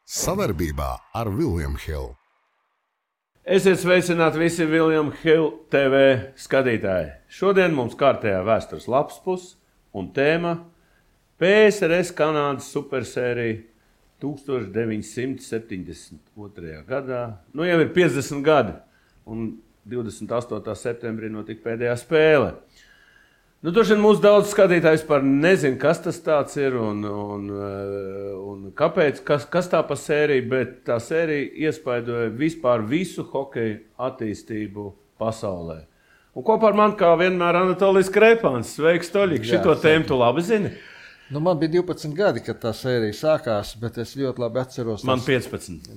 Sadarbībā ar William Hill. Esiet sveicināti visi William Hill TV skatītāji. Šodien mums kārtējā vēstures lapspus un tēma PSRS Kanādas supersērija 1972. gadā. Nu jau ir 50 gadi un 28. septembrī notika pēdējā spēle. Nu, droši vien mūsu daudz skatītājs par nezinu, kas tas tāds ir un kāpēc, kas tā pa sērija, bet tā sērija iespaidoja vispār visu hokeju attīstību pasaulē. Un kopā ar mani kā vienmēr Anatolijs Krēpāns. Sveiks, Toļik, šito tēmu tu labi zini? Nu, man bija 12 gadi, kad tā sērija sākās, bet es ļoti labi atceros. Man 15.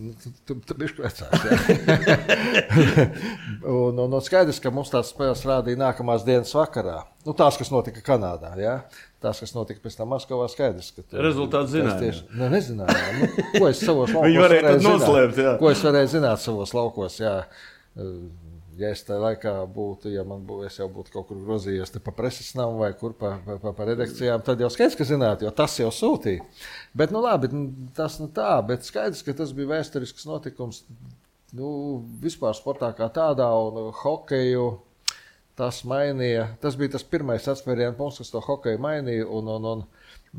Tu bišķi vecāks, jā. un skaidrs, ka mums tās spēles rādīja nākamās dienas vakarā. Nu, tās, kas notika Kanādā, jā. Tās, kas notika pēc tam Maskavā, skaidrs. Rezultāts zināja. Nezinājām. Nu, ko es savos laukos Viņi varēja tad noslēpt, jā. Ko es varēju zināt savos laukos, jā. Ja es tajā laikā būtu, es jau būtu kaut kur grozījies pa preses namu vai kur pa redakcijām, tad jau skaidrs, ka zinātu, jo tas jau sūtīja. Bet, nu labi, tas nu tā, bet skaidrs, ka tas bija vēsturisks notikums, nu, vispār sportā kā tādā un hokeju tas mainīja. Tas bija tas pirmais atspērienu punkts, kas to hokeju mainīja un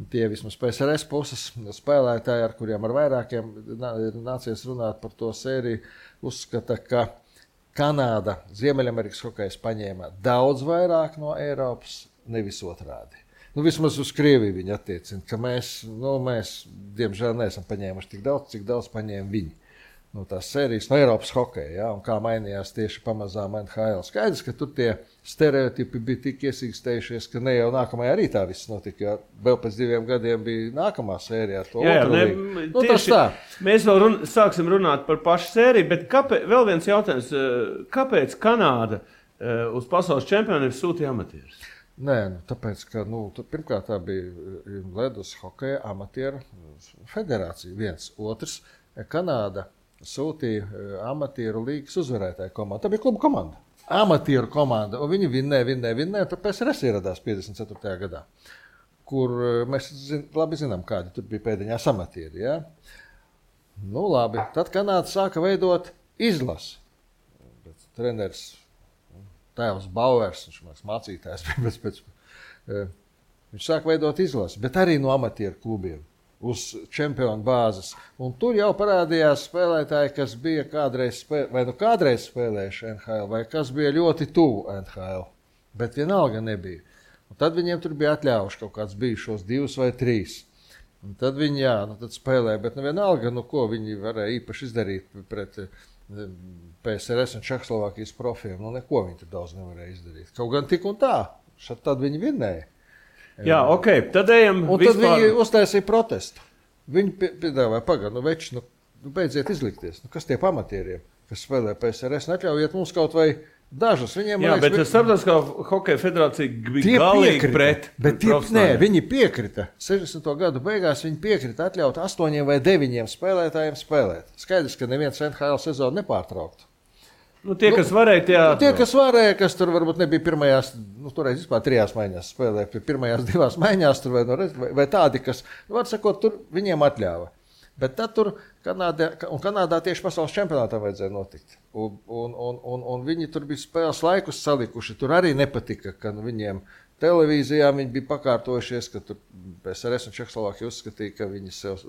tie vismaz PSRS puses spēlētāji, ar kuriem ar vairākiem nācies runāt par to sēriju, uzskata, ka Kanāda Ziemeļamerikas hokejs paņēma daudz vairāk no Eiropas, nevis otrādi. Nu, vismaz uz Krieviju viņi attiecina, ka mēs, diemžēl, neesam paņēmuši tik daudz, cik daudz paņēma viņi. No tās sērijas no Eiropas hokeja, ja, un kā mainījās tieši pamazām NHL. Skaidrs, ka tur tie stereotipi bija tik iesīkstējušies, ka ne jau nākamajā rītā viss notika, jo vēl pēc 2 gadiem bija nākamā sērija ar to otru līgu. Nu, tas tā. Mēs vēl sāksim runāt par pašu sēriju, bet vēl viens jautājums, kāpēc Kanāda uz pasaules čempioniem sūtīja amatierus? Nē, tāpēc, ka pirmkārt tā bija ledus hokeja amatieru federācija viens. Otrs, Kanāda sūtīja amatieru līgas uzvarētāju komandu. Tā bija kluba komanda. Amatieru komanda. Un viņi vinnēja. Tad PSRS ieradās 54. gadā, kur mēs labi zinām, kādi tur bija pēdiņās amatieri. Ja? Nu labi. Tad Kanāda sāka veidot izlasi. Treneris tēvs Bauers, viņš mācītājs bija, viņš sāka veidot izlasi, bet arī no amatieru klubiem. Uz čempionu bāzes. Un tur jau parādījās spēlētāji, kas bija kādreiz spēlējuši NHL, vai kas bija ļoti tuvu NHL, bet vienalga nebija. Un tad viņiem tur bija atļaujuši kaut kāds bijušos 2 vai 3. Un tad viņi, tad spēlēja, bet vienalga, ko viņi varēja īpaši izdarīt pret PSRS un Čehoslovākijas profiem. Neko viņi tur daudz nevarēja izdarīt. Kaut gan tik un tā, tad viņi vinnēja. Jā, ok, tad ejam un vispār. Tad viņi uztaisīja protestu. Viņi piedāvāja, beidziet izlikties. Kas tie pamatieriem, kas spēlē PSRS, neatļaujiet mums kaut vai dažus. Viņiem, jā, bet Starptautiskā hokeja federācija bija galīgi pret. Viņi piekrita. 60. gadu beigās viņi piekrita atļaut 8 vai 9 spēlētājiem spēlēt. Skaidrs, ka neviens NHL sezonu nepārtrauktu. Tie, kas varēja, kas tur varbūt nebija pirmajās, toreiz vispār 3 maiņās spēlēja, pirmajās 2 maiņās tur vai tādi, kas, var sakot, tur viņiem atļāva. Bet tad tur Kanādā tieši pasaules čempionātā vajadzēja notikt. Un viņi tur bija spēles laikus salikuši, tur arī nepatika, ka viņiem televīzijā viņi bija pakārtojušies, ka tur PSRS un Čehoslovākija uzskatīja, ka viņi sev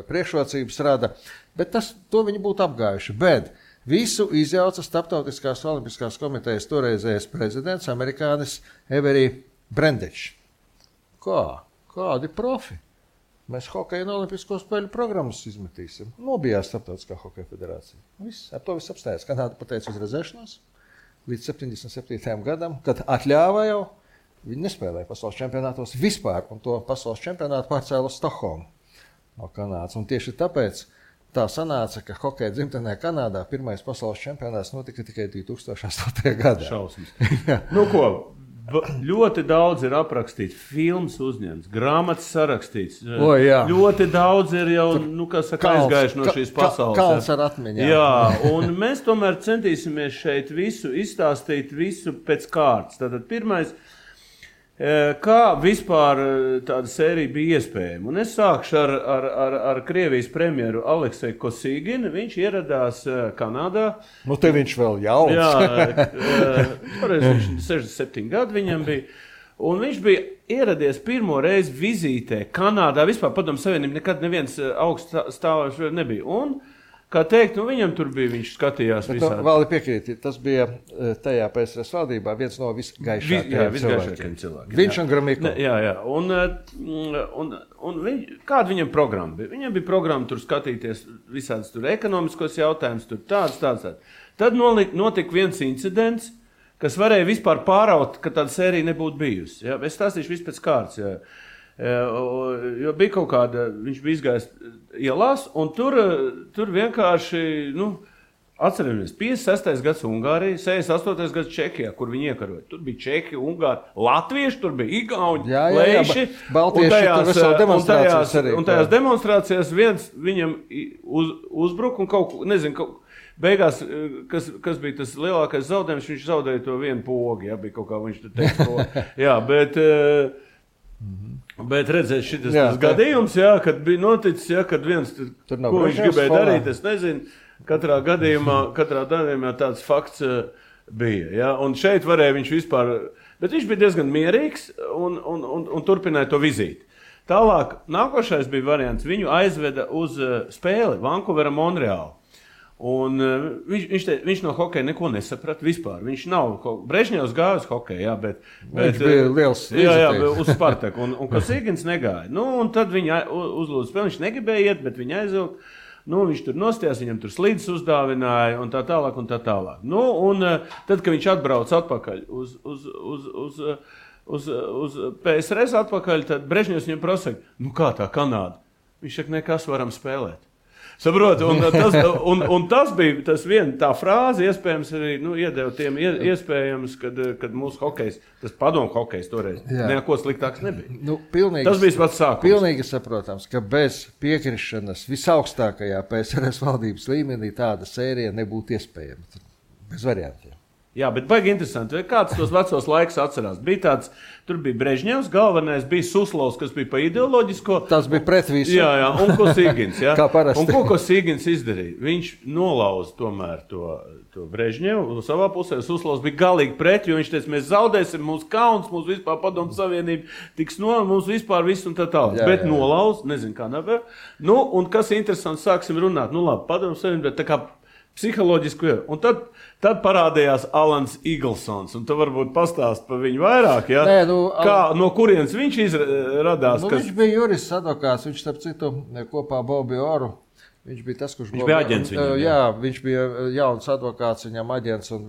priekšrocības rada, bet to viņi būtu apgājuši. Bet visu izjauca Starptautiskās olimpiskās komitejas toreizējais prezidents, amerikānis Avery Brandage. Kādi profi? Mēs hokeju un olimpisko spēļu programmas izmetīsim. Nobijās Starptautiskā hokeja federācija. Ar to viss apstājās. Kanāda pateica uz rezēšanos līdz 77. gadam, kad atļāva jau, viņi nespēlēja pasaules čempionātos vispār, un to pasaules čempionātu pārcēla uz Stokholmu no Kanādas. Un tieši tāpēc tā sanāca, ka hokeja dzimtenē Kanādā pirmais pasaules čempionāts notika tikai 2008. gadā. Šausmas. Ļoti daudz ir aprakstīts, filmas uzņemts, grāmatas sarakstīts. Ļoti daudz ir jau, aizgājuši no šīs pasaules. Kalns ar atmiņām. Jā, un mēs tomēr centīsimies šeit visu izstāstīt, visu pēc kārtas. Tātad pirmais, Kā vispār tāda sērija bija iespējama? Un es sākšu ar Krievijas premjeru Alekseju Kosīginu. Viņš ieradās Kanādā. Nu, te viņš vēl jauns. Jā, toreiz viņš 67 gadi viņam bija. Un viņš bija ieradies pirmo reizi vizītē Kanādā. Vispār Padomju Savienība nekad neviens augststāvošs nebija. Un, kā teikt, viņam tur bija, viņš skatījās visādi. Vēl piekrīt, tas bija tajā PSRS valdībā viens no visgaišākajiem cilvēkiem. Viņš un Gromyko. Jā. Un kāda viņam programma bija? Viņam bija programma tur skatīties visādas tur ekonomiskos jautājumus, tur tāds. Tad notika viens incidents, kas varēja vispār pāraut, ka tāda sērija nebūtu bijusi. Ja? Es stāstīšu visu pēc kārtas. Ja? Jo bija kaut kāda, viņš bija izgājis ielās, un tur vienkārši, atceramies, 56. gads Ungārija, 68. gads Čehijā, kur viņi iekaroja. Tur bija Čehi, Ungāri, Latvieši, tur bija Igauņi, Leiši. Un tajās demonstrācijās viens viņam uzbruka un kaut beigās, kas bija tas lielākais zaudējums, viņš zaudēja to vienu pogu, ja, bija kaut kā viņš teica pogu. Jā, bet redzēt šitas gadījums, jā, kad bija noticis, jā, kad viens, ko viņš gribēja darīt, es nezinu, katrā gadījumā tāds fakts bija, jā, un šeit varēja viņš vispār, bet viņš bija diezgan mierīgs un turpināja to vizīti. Tālāk, nākošais bija variants, viņu aizveda uz spēli Vankūvera Monreālu. Un viņš no hokeja neko nesaprata vispār. Viņš nav Brežņevs gāja uz hokeju, jā, bet viņš bija liels uz Spartaku, un Kosīgins negāja. Un tad viņa uzlūdza spēli, viņš negribēja iet, bet viņa aizvilka. Viņš tur nostājās, viņam tur slīdes uzdāvināja un tā tālāk. Un tad, kad viņš atbrauc atpakaļ uz PSRS atpakaļ, tad Brežņevs viņam prasa, kā tā Kanāda? Viņš saka, nekas varam spēlēt. Saprot, un tas bija tas tā frāze, iespējams arī iedeva tiem iespējams, kad mūsu hokejs, tas padomu hokejs toreiz, neko sliktāks nebija. Tas bija pats sākums. Pilnīgi saprotams, ka bez piekrišanas visaugstākajā PSRS valdības līmenī tāda sērija nebūtu iespējama. Bez variantiem. Jā, bet baigi interesanti. Kāds tos vecos laikus atcerās? Tur bija Brežņevs, galvenais bija Suslovs, kas bija pa ideoloģisko. Tas bija pret visu. Jā, un Kosīgins. Kā parasti. Un ko Kosīgins izdarīja? Viņš nolauza tomēr to Brežņevu savā pusē. Suslovs bija galīgi pret, jo viņš teica, mēs zaudēsim, mūsu kauns, mūsu vispār Padomju Savienība tiks mūsu vispār viss un tā tālāk. Bet nolauza, nezinu kā nevar. Un kas interesants, sāksim runāt. Labi, Padomju Savienība, tā kā psiholoģisku jau. Un tad parādījās Alans Iglsons, un tu varbūt pastāst par viņu vairāk, ja? No kurienes viņš radās? Viņš bija jurists advokāts, viņš starp citu kopā Bobiju Oru. Viņš bija tas, kurš bija aģents viņam. Jā, viņš bija jauns advokāts, viņam aģents, un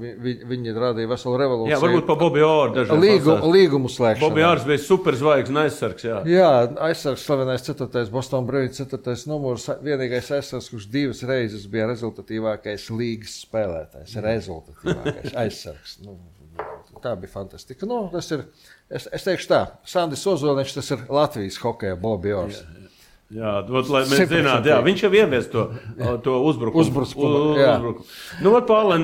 viņi radīja veselu revolūciju. Jā, varbūt pa Bobiju Oru dažādi līgumu slēgšanu. Bobiju Ors bija superzvaigznes aizsargs, jā. Jā, aizsargs slavenais 4. Boston Bruins 4. numurs, vienīgais aizsargs, kurš 2 reizes bija rezultatīvākais līgas spēlētājs, rezultatīvākais aizsargs. Tā bija fantastika. Tas ir, es teikšu tā, Sandis Ozoliņš, tas ir Latvijas hokeja Bobiju Ors. Jā, lai mēs zinātu, viņš jau ievies to uzbrukumu. Un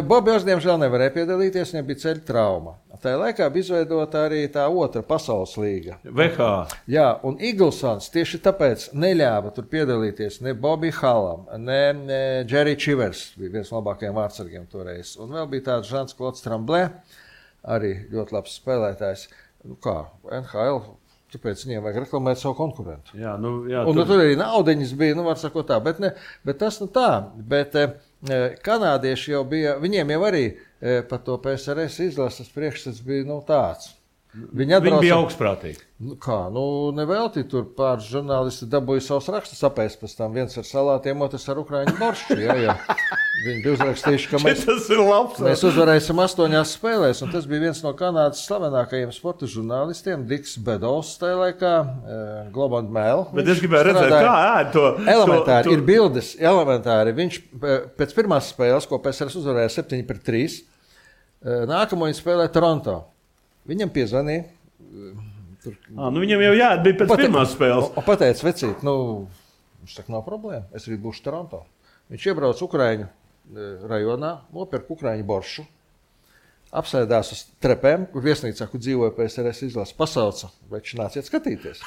Bobijs, diemžēl, nevarēja piedalīties, viņam bija ceļa trauma. Tajā laikā bija izveidota arī tā otra pasaules līga. VH. Jā, un Iglsons tieši tāpēc neļāva tur piedalīties ne Bobby Hallam, ne Jerry Chivers, bija viens no labākajiem vārdsargiem toreiz. Un vēl bija tāds Žans-Klods Tremblē, arī ļoti labs spēlētājs. NHL. Tāpēc viņiem vajag reklamēt savu konkurentu. Jā, tur arī naudiņas bija, var sakot tā, bet tas tā. Bet kanādieši jau bija, viņiem jau arī par to PSRS izlases priekšstats bija tāds. Viņi bija augstprātīgi. Nevelti tur pāris žurnālisti dabūja savus rakstus apēst pēc tam. Viens ar salātiem, otrs ar ukraiņu boršu. Jā. Viņi bija uzrakstījuši, ka mēs uzvarēsim 8 spēlēs. Un tas bija viens no Kanādas slavenākajiem sporta žurnālistiem, Diks Bedovs tajā laikā, Globe and Mail. Bet es gribēju redzēt, kā ēd to. Elementāri, ir bildes, elementāri. Viņš pēc pirmās spēles, ko PSRS uzvarēja 7-3, nākamo viņi spēlēja Toronto. Viņam piezvanīja. Viņam jau bija pēc pirmās spēles. Pateica, vecīt, viņš saka, nav problēma, es arī būšu Toronto. Viņš iebrauc Ukraiņu rajonā, nopirka ukraiņu boršu, apsēdās uz trepēm, kur viesnīcā, kur dzīvoja PSRS izlases, pasauca, veči nāciet skatīties.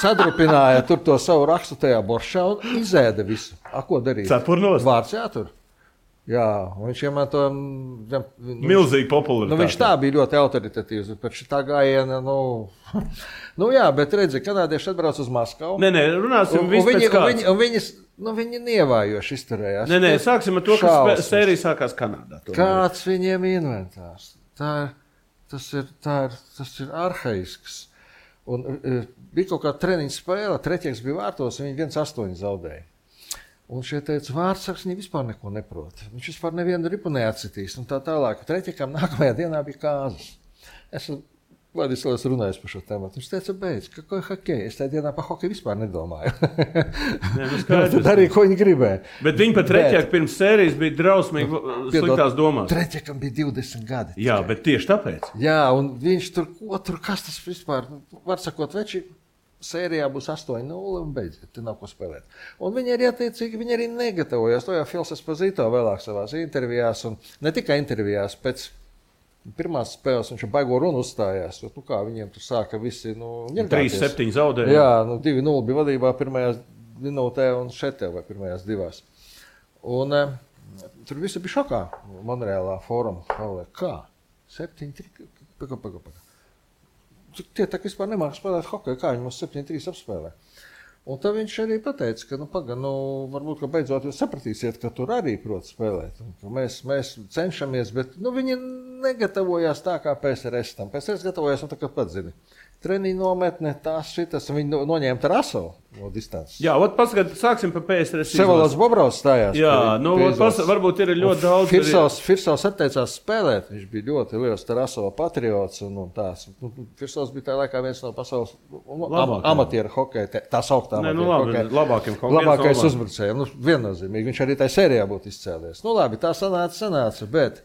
Sadrupināja tur to savu rakstu tajā boršā un izēda visu. Ko darīt? Cepurnos? Vārds jātur. Jā, un viņš iemanto... Milzīgi popularitāti. Viņš tā bija ļoti autoritatīvs, bet šitā gājiena, jā, bet redzi, kanādieši atbrauc uz Maskavu. Nē, runāsim vispēc kāds. Viņi nievājoši izturējās. Nē, sāksim ar to, ka sērija sākās Kanādā. Kāds viņiem inventārs? Tas ir arhaisks. Un bija kaut kā treniņa spēle, treķieks bija vārtos, un viņi 1-8 zaudēja. Un šie teica, vārdsargs viņi vispār neko neprot. Viņš vispār nevienu ripu neatcitīs. Un tā tālāk. Treķiekam nākamajā dienā bija kāzas. Vladislavs runājis par šo tēmatu. Viņš teica, beidz, ka hokeja. Es tajā dienā par hokeju vispār nedomāju. Tad arī, ko viņi gribēja. Bet viņi pat treķieki pirms sērijas bija drausmīgi sliktās domās. Treķiekam bija 20 gadi. Jā, bet tieši tāpēc. Jā, un viņš tur kas tas vispār, var sakot, veči, sērijā būs 8-0 un beidziet, te nav ko spēlēt. Un viņi arī attiecīgi, viņi arī negatavojās. To jau Fils Esposito vēlāk savās intervijās, un ne tikai intervijās, pēc pirmās spēles viņš baigo runu uzstājās. Kā viņiem tur sāka visi, 3-7 zaudēja. Jā, 2-0 bija vadībā pirmajās minūtē un šetē vai pirmajās divās. Un tur visi bija šokā Monreālā fóruma. Kā? 7-3? Paka. Tie tā vispār nemāk spēlēt hokeju, kā viņi mums 7-3 apspēlē. Un tad viņš arī pateica, ka varbūt, ka beidzot jūs sapratīsiet, ka tur arī prot spēlēt. Un, ka mēs cenšamies, bet viņi negatavojās tā kā PSRS tam. PSRS gatavojās, un tā kā pats zini. Treniņu nometne, šitas, viņi noņēma Tarasovu no distances. Jā, sāksim par PSRS. Sevalds Bobrovs stājās. Jā, varbūt ir ļoti daudz. Firsovs atteicās spēlēt, viņš bija ļoti liels Tarasova patriots un tās. Firsovs bija tā laikā viens no pasaules amatieru hokeja, tā sauktā labākiem hokeja. Labākais uzbrucējiem, viennozīmīgi, viņš arī tā sērijā būtu izcēlies. Labi, tā sanāca, bet...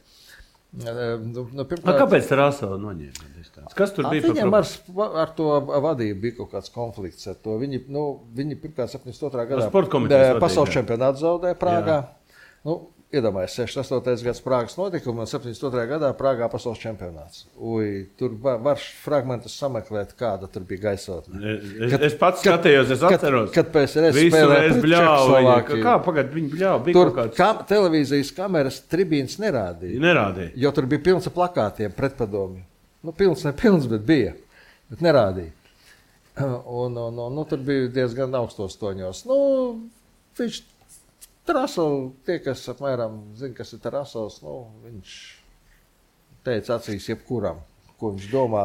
Kāpēc Tarasova noņēma? Kas tur bija? Viņam ar to vadību bija kaut kāds konflikts ar to. Viņi pirmkārt 72. gadā pasaules čempionātu zaudēja Prāgā. Iedomājies, 68. gads Prāgas notikuma un 72. gadā Prāgā pasaules čempionāts. Tur var fragmentus sameklēt, kāda tur bija gaisotne. Es pats skatījos, es atceros. Kad PSRS spēlēja pret Čehoslovākiju. Kā pagad viņi bļāva? Tur televīzijas kameras tribīnas nerādīja. Jo tur bija pilns ar plakātiem pretpadomju. Pilns, nepilns, bet bija. Bet nerādīja. Un tur bija diezgan augstos toņos. Viņš Tarasovs, tie, kas apmēram zina, kas ir Tarasovs, viņš teica acīs jebkuram, ko viņš domā.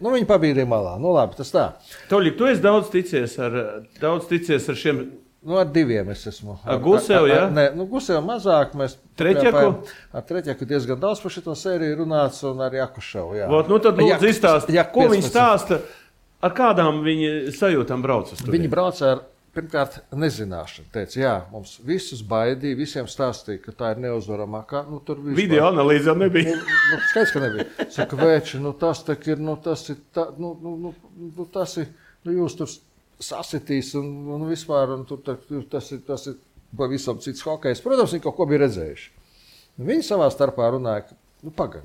Viņi pabīdīja malā. Labi, tas tā. Toļik, tu esi daudz ticies ar šiem... Ar diviem es esmu. Ar Gusevu, jā? Nē, Gusevu mazāk. Mēs Treķeku? Ar Treķeku diezgan daudz par šito sēriju runāts un ar Jakuševu, jā. Tad lūdzu izstāst, ko viņi stāsta, ar kādām viņi sajūtām brauc uz tur? Viņi brauc ar... Pirmkārt, nezināšana. Teica, jā, mums visus baidīja, visiem stāstīja, ka tā ir neuzvaramākā. Video analīze jau nebija. Skaidrs, ka nebija. Saka, veči, tas tā ir, tas ir, jūs tur sasitīs un vispār, un tur tas ir pavisam cits hokejs. Protams, viņi kaut ko bija redzējuši. Viņi savā starpā runāja, ka,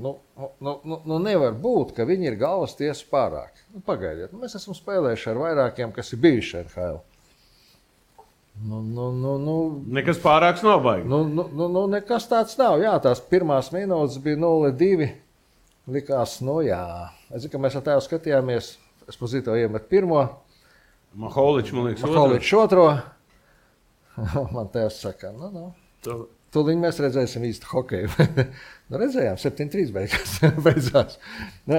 nevar būt, ka viņi ir galvas tiesa pārāk. Pagaidiet, mēs esam spēlējuši ar vairākiem, kas ir bijuši NHL. Nekas pārāks nav baigi. Nekas tāds nav. Jā, tās pirmās minūtes bija 0-2. Likās, jā. Es zinu, ka mēs ar tevi skatījāmies. Esposito iemet pirmo. Maholičs, man liekas, Maholičs otro. Man tevs saka, tūlīt mēs redzēsim īstu hokeju. Redzējām, 7-3 beidzās.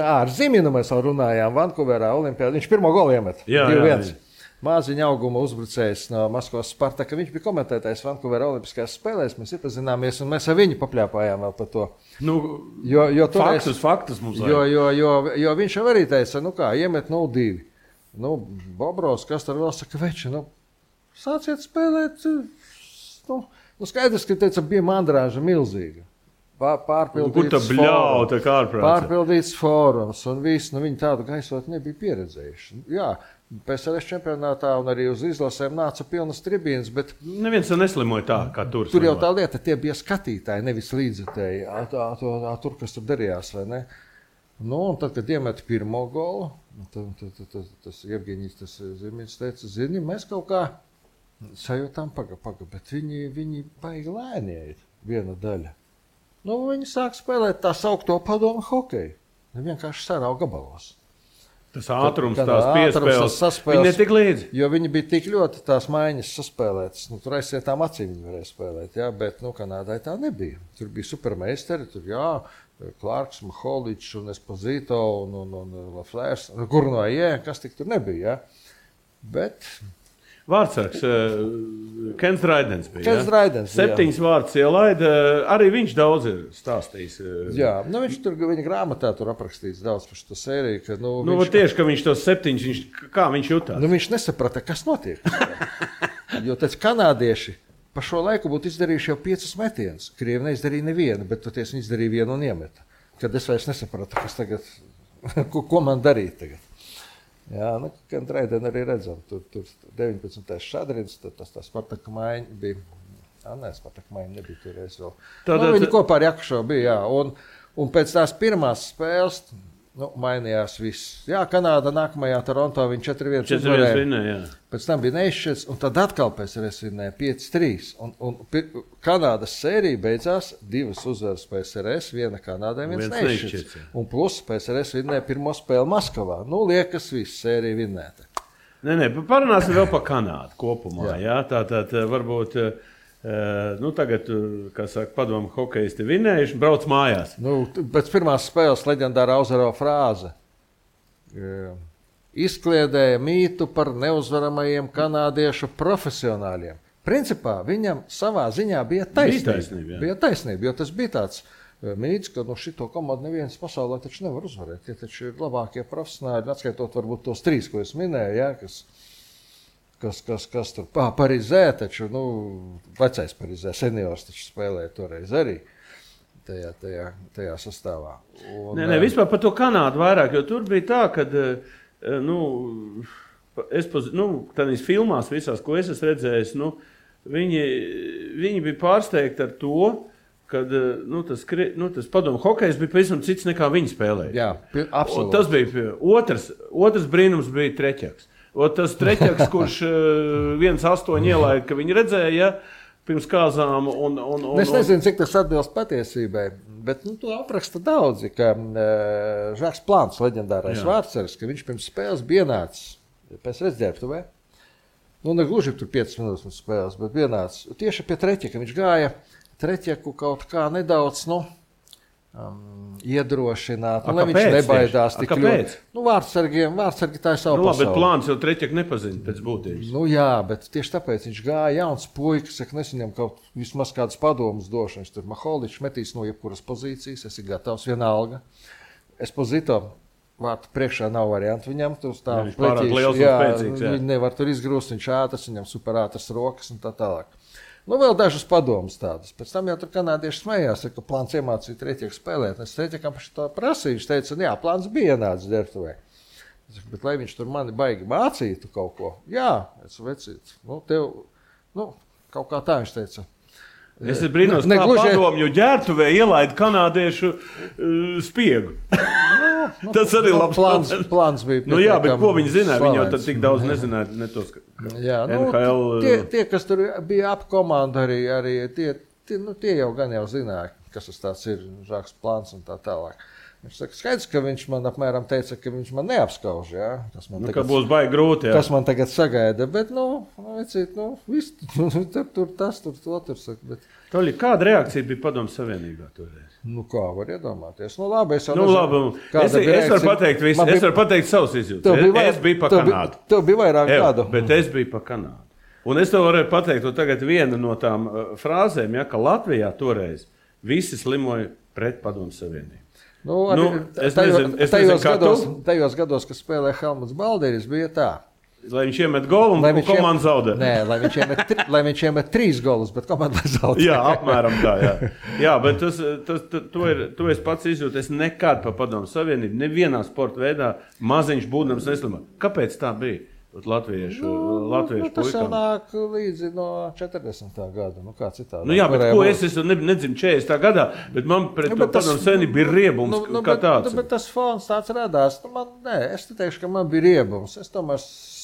Ar Ziminu mēs vēl runājām Vankūverā Olimpiādā. Viņš pirmo golu iemet. 2-1. Māziņa auguma uzbrucējs no Maskavas Spartaka. Viņš bija komentētājs Vankūverā Olimpiskajās spēlēs. Mēs iepazināmies un mēs ar viņu papļāpājām vēl par to. Faktus mums vajag. Jo viņš jau arī teica, iemet 0-2. Bobrovs, kas tur vēl saka, veči, sāciet spēlēt. Skaidrs, ka teica, bija mandrāža milzīga. Pārpildīts fórums un viss, viņi tādu gaisot nebija pieredzējuši. Jā. PSRS čempionātā un arī uz izlasēm nāca pilnas tribīnas, bet Neviens neslimoja tā, kā tur. Tur jau tā lieta, tie bija skatītāji, nevis līdzekļi. Tur, kas tur darījās, vai ne? Nu, un tad, kad iemeta pirmo golu, tas Jevgeņijs, tas Zimiņš teica, zini, mēs kaut kā sajūtām paga, bet viņi baigi lēnie viena daļa. Nu, viņi sāk spēlēt tā saukto padomu hokeju. Vienkārši sarau gabalos. Tas ātrums, tās piespēles, viņi netik līdzi. Jo viņi bija tik ļoti tās maiņas saspēlētas. Nu, tur aizsietām acīm viņi varēja spēlēt, jā, bet Kanādai tā nebija. Tur bija supermeisteri, tur Klārks, Maholičs un Esposito un Laflērs, Gurnoje, kas tik tur nebija, jā. Bet... Vārdsargs, Kens Raidens bija. Kens Raidens, 7 vārdus ielaida, arī viņš daudz ir stāstījis. Jā, nu viņš tur, viņa grāmatā tur aprakstīts daudz par šo sēriju, ka, tieši, ka viņš tos 7, kā viņš jutās? Nu, viņš nesaprata, kas notiek. Jo tāds kanādieši pa šo laiku būtu izdarījuši jau 5 metienus. Krievi neizdarīja nevienu, bet toties viņi izdarīja vienu un iemeta. Kad es vairs nesapratu, kas tagad, ko man darīt tagad. Jā, gan Raideni arī redzam, tur 19. šadrins, tas Spartaka maiņa bija, Spartaka maiņa nebija toreiz vēl. Viņi kopā ar Jakušovu bija, jā, un pēc tās pirmās spēles, mainījās viss. Jā, Kanāda nākamajā Toronto viņi 4-1 uzvarēja. Pēc tam bija neizšķirts, un tad atkal PSRS vinnēja 5-3. Un Kanādas sērija beidzās 2 uzvaras PSRS, 1 Kanādai, 1 neizšķirts. Un plus PSRS vinnēja pirmo spēli Maskavā. Nu, liekas, viss sērija vinnēta. Nē, parunāsim vēl par Kanādu kopumā. Jā. Tātad varbūt... tagad, kā saka, padomu hokejisti vinnējuši, brauc mājās. Pēc pirmās spēles leģendāra Auzaro frāze izkliedēja mītu par neuzvaramajiem kanādiešu profesionāļiem. Principā viņam savā ziņā bija taisnība, jo tas bija tāds mīts, ka šito komandu neviens pasaulē taču nevar uzvarēt. Tie taču ir labākie profesionāļi, atskaitot varbūt tos 3, ko es minēju, jā, kas tur Parizē, taču, vecais Parizē, seniors taču spēlēja toreiz arī tajā sastāvā. Nē, vispār par to Kanādu vairāk, jo tur bija tā, kad, tādīs filmās visās, ko es esmu redzējis, viņi bija pārsteigti ar to, kad tas padomu hokejs bija pavisam cits nekā viņi spēlēja. Jā, absolūti. Un tas bija otrs brīnums bija Treķaks. Tas Treķaks, kurš 1-8 ielaida, ka viņi redzēja pirms kāzām. Es nezinu, cik tas atbilst patiesībai, bet to apraksta daudzi, ka Žaks Plāns, leģendārais vārdsargs, ka viņš pirms spēles bija ienācis pēc redzēptuvē. Ne gluži tur 5 minūtes pirms spēles, bet vienācis. Tieši pie Treķaka viņš gāja Treķaku kaut kā nedaudz, iedrošināt, lai viņš nebaidās tik ļoti. Vārdsargi tā ir savu pasauli. Bet Plāns jau Treķaku nepazina pēc būtības. Jā, bet tieši tāpēc viņš gāja jauns puikas, es viņam kaut vismaz kādas padomas došu. Viņš tur Maholičs metīs no jebkuras pozīcijas, esi gatavs vienalga. Esposito vārtu priekšā nav variantu viņam. Viņš pārāk liels un spēcīgs. Viņi nevar tur izgrūst, viņš ātrs, viņam superātras rokas un tā tālāk. Vēl dažas padomas tādas. Pēc tam jau tur kanādieši smējās, ka Plāns iemācīja Treķaku spēlēt. Es Treķakam par šo prasīju, viņš teica, jā, Plāns bija ienācis ģērbtuvē. Bet lai viņš tur mani baigi mācītu kaut ko, jā, es vecītu. Kaut kā tā viņš teica. Es brīnos, kā padomju ģērbtuvē ielaida kanādiešu spiegu. Tas arī labs plāns bija. Jā, bet ko viņi zināja? Viņi jau tad tik daudz nezināja, ne tos, jā, NHL. Tie, kas tur bija ap komandu arī tie jau gan jau zināja, kas tas tāds ir, Žaks Plāns un tā tālāk. Viņš saka, skaidrs, ka viņš man apmēram teica, ka viņš man neapskauž, jā. Ka būs baigi grūti, jā. Tas man tagad sagaida, bet, viss, tur tas, tur to, tur saka, bet... Toļi, kāda reakcija bija Padomu Savienībā toreiz? Kā var iedomāties? Labi, es jau nezinu. Es varu pateikt visu, es varu pateikt savus izjūtas. Es biju pa Kanādu. Tev bija vairāk gadu. Bet es biju pa Kanādu. Un es tev varēju pateikt, tagad viena no tām frāzēm, ja, ka Latvijā toreiz visi slimoja pret Padomu Savienību. Tajos gados, kad spēlēja Helmuts Balderis, bija tā. Lai viņš iemet golu un komanda zaudē. Nē, lai viņš iemet 3 golus, bet komanda zaudē. Jā, apmēram tā, jā. Jā, bet to es pats izjūtu. Es nekad pa Padomu Savienību, nevienā sporta veidā maziņš būdams neslimoju. Kāpēc tā bija? latviešu Tas jau puikām. nāk līdzi no 40. gada. Kā citādi. Nu jā, bet ko es nedzinu 40. gadā, bet man pret to padomu senību bija riebums kā tāds. Bet tas fons tāds radās. Es teikšu, ka man bija riebums. Es tomēr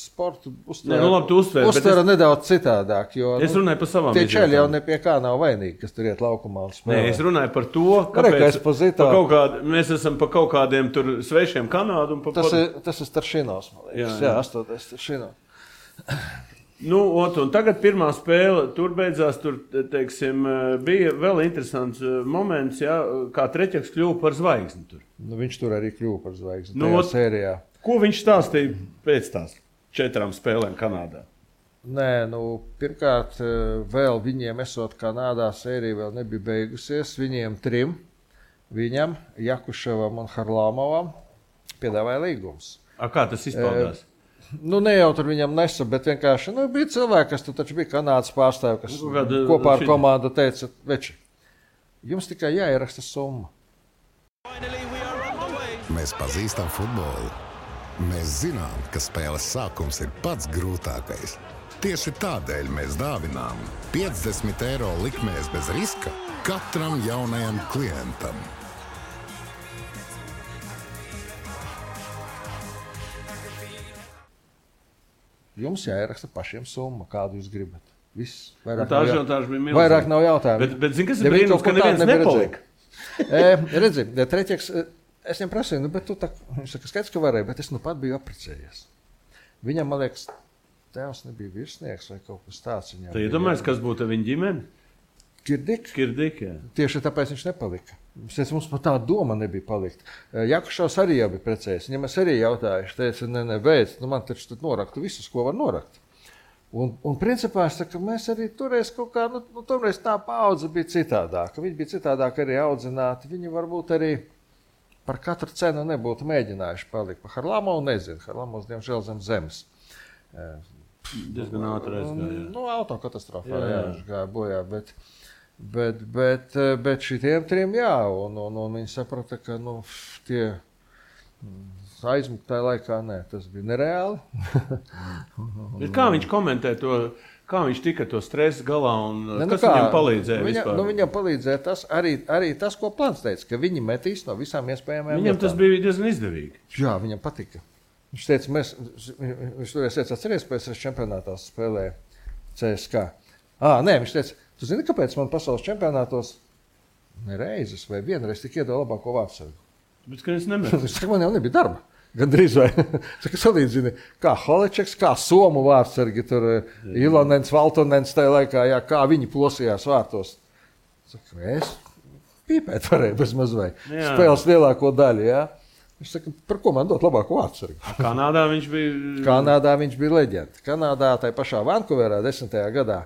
sportu uztveru nedaudz citādāk. Jo, es runāju par savām tie čeļi jau ne pie kā nav vainīgi, kas tur iet laukumā un spēlē. Nē, es runāju par to, kāpēc mēs esam pa kaut kādiem tur svešiem Kanādu. Tas ir Staršinovs, man liekas. Jā, 8. Staršinovs. Nu, un tagad pirmā spēle tur beidzās, tur, teiksim, bija vēl interesants moments, jā, kā Treķeks kļuva par zvaigzni tur. Nu, viņš tur arī kļuva par zvaigzni tajā sērijā. Ko viņš stāstīja pēc tās 4 spēlēm Kanādā? Nē, pirmkārt, vēl viņiem esot Kanādā sērija vēl nebija beigusies. Viņiem 3, viņam, Jakuševam un Harlamovam, piedāvāja līgums. Kā tas izpaudās? Ne jau tur viņam nesa, bet vienkārši bija cilvēki, kas tur taču bija Kanādas pārstāvi, kas kopā ar komandu teica, veči, jums tikai jāieraksta summa. Mēs pazīstam futbolu. Mēs zinām, ka spēles sākums ir pats grūtākais. Tieši tādēļ mēs dāvinām 50 eiro likmēs bez riska katram jaunajam klientam. Jums jāieraksta pašiem summa, kādu jūs gribat. Viss. Vairāk nav jautājumu. Bet zini, kas ir brīnums, ka neviens nepalika? Redzi, Treķeks, es viņam prasīju, bet tu tā, viņš saka, skaidrs, ka varēja, bet es pat biju apprecējies. Viņam, man liekas, tēvs nebija virsnieks vai kaut kas tāds. Tu iedomājies, kas būtu viņa ģimene? Kirdik, jā. Tieši tāpēc viņš nepalika. Mums pat tā doma nebija palikt. Jakušovs arī jau bija precējies. Viņam es arī jautāju, viņš teica, beidz, man taču tad noraktu visus, ko var norakt. Un principā es saku, mēs arī toreiz kaut kā, toreiz tā paudze bija citādāka. Viņi bija citādāk arī audzināti. Viņi varbūt arī par katru cenu nebūtu mēģinājuši palikt. Par Harlamovu nezinu. Harlamovs, diemžēl, zem zemes. Diezgan ātri aizgāja. Autokatastrofā, jā, viņš gāja bojā, bet šitiem 3, jā, un viņi saprata, ka, tie aizmukt tajā laikā, nē, tas bija nereāli. Bet kā viņš komentē to, kā viņš tika to stresu galā un kas viņam palīdzēja vispār? Viņam palīdzēja tas, arī tas, ko Plants teica, ka viņi metīs no visām iespējamajām Viņam tas bija diezgan izdevīgi. Jā, viņam patika. Viņš teica, viņš toreiz teica, atceries, pēc čempionātā spēlēja CSK. Nē, viņš teica, tu zini, kāpēc man pasaules čempionātos nereizes vai vienreiz tik iedod labāko vārdsargu? Bet, ka es nemetu. Viņš saka, man jau nebija darba. Gandrīz vai. Saka, salīdzini, kā Holečeks, kā Somu vārdsargi, tur Ilonens, Valtonens tajā laikā, jā, kā viņi plosījās vārtos. Saka, es pīpēt varēju bez mazvai. Spēles lielāko daļu, jā. Viņš saka, par ko man dot labāko vārdsargu? Kanādā viņš bija leģenda. Kanādā, tai pašā Vankūverā 10. gadā,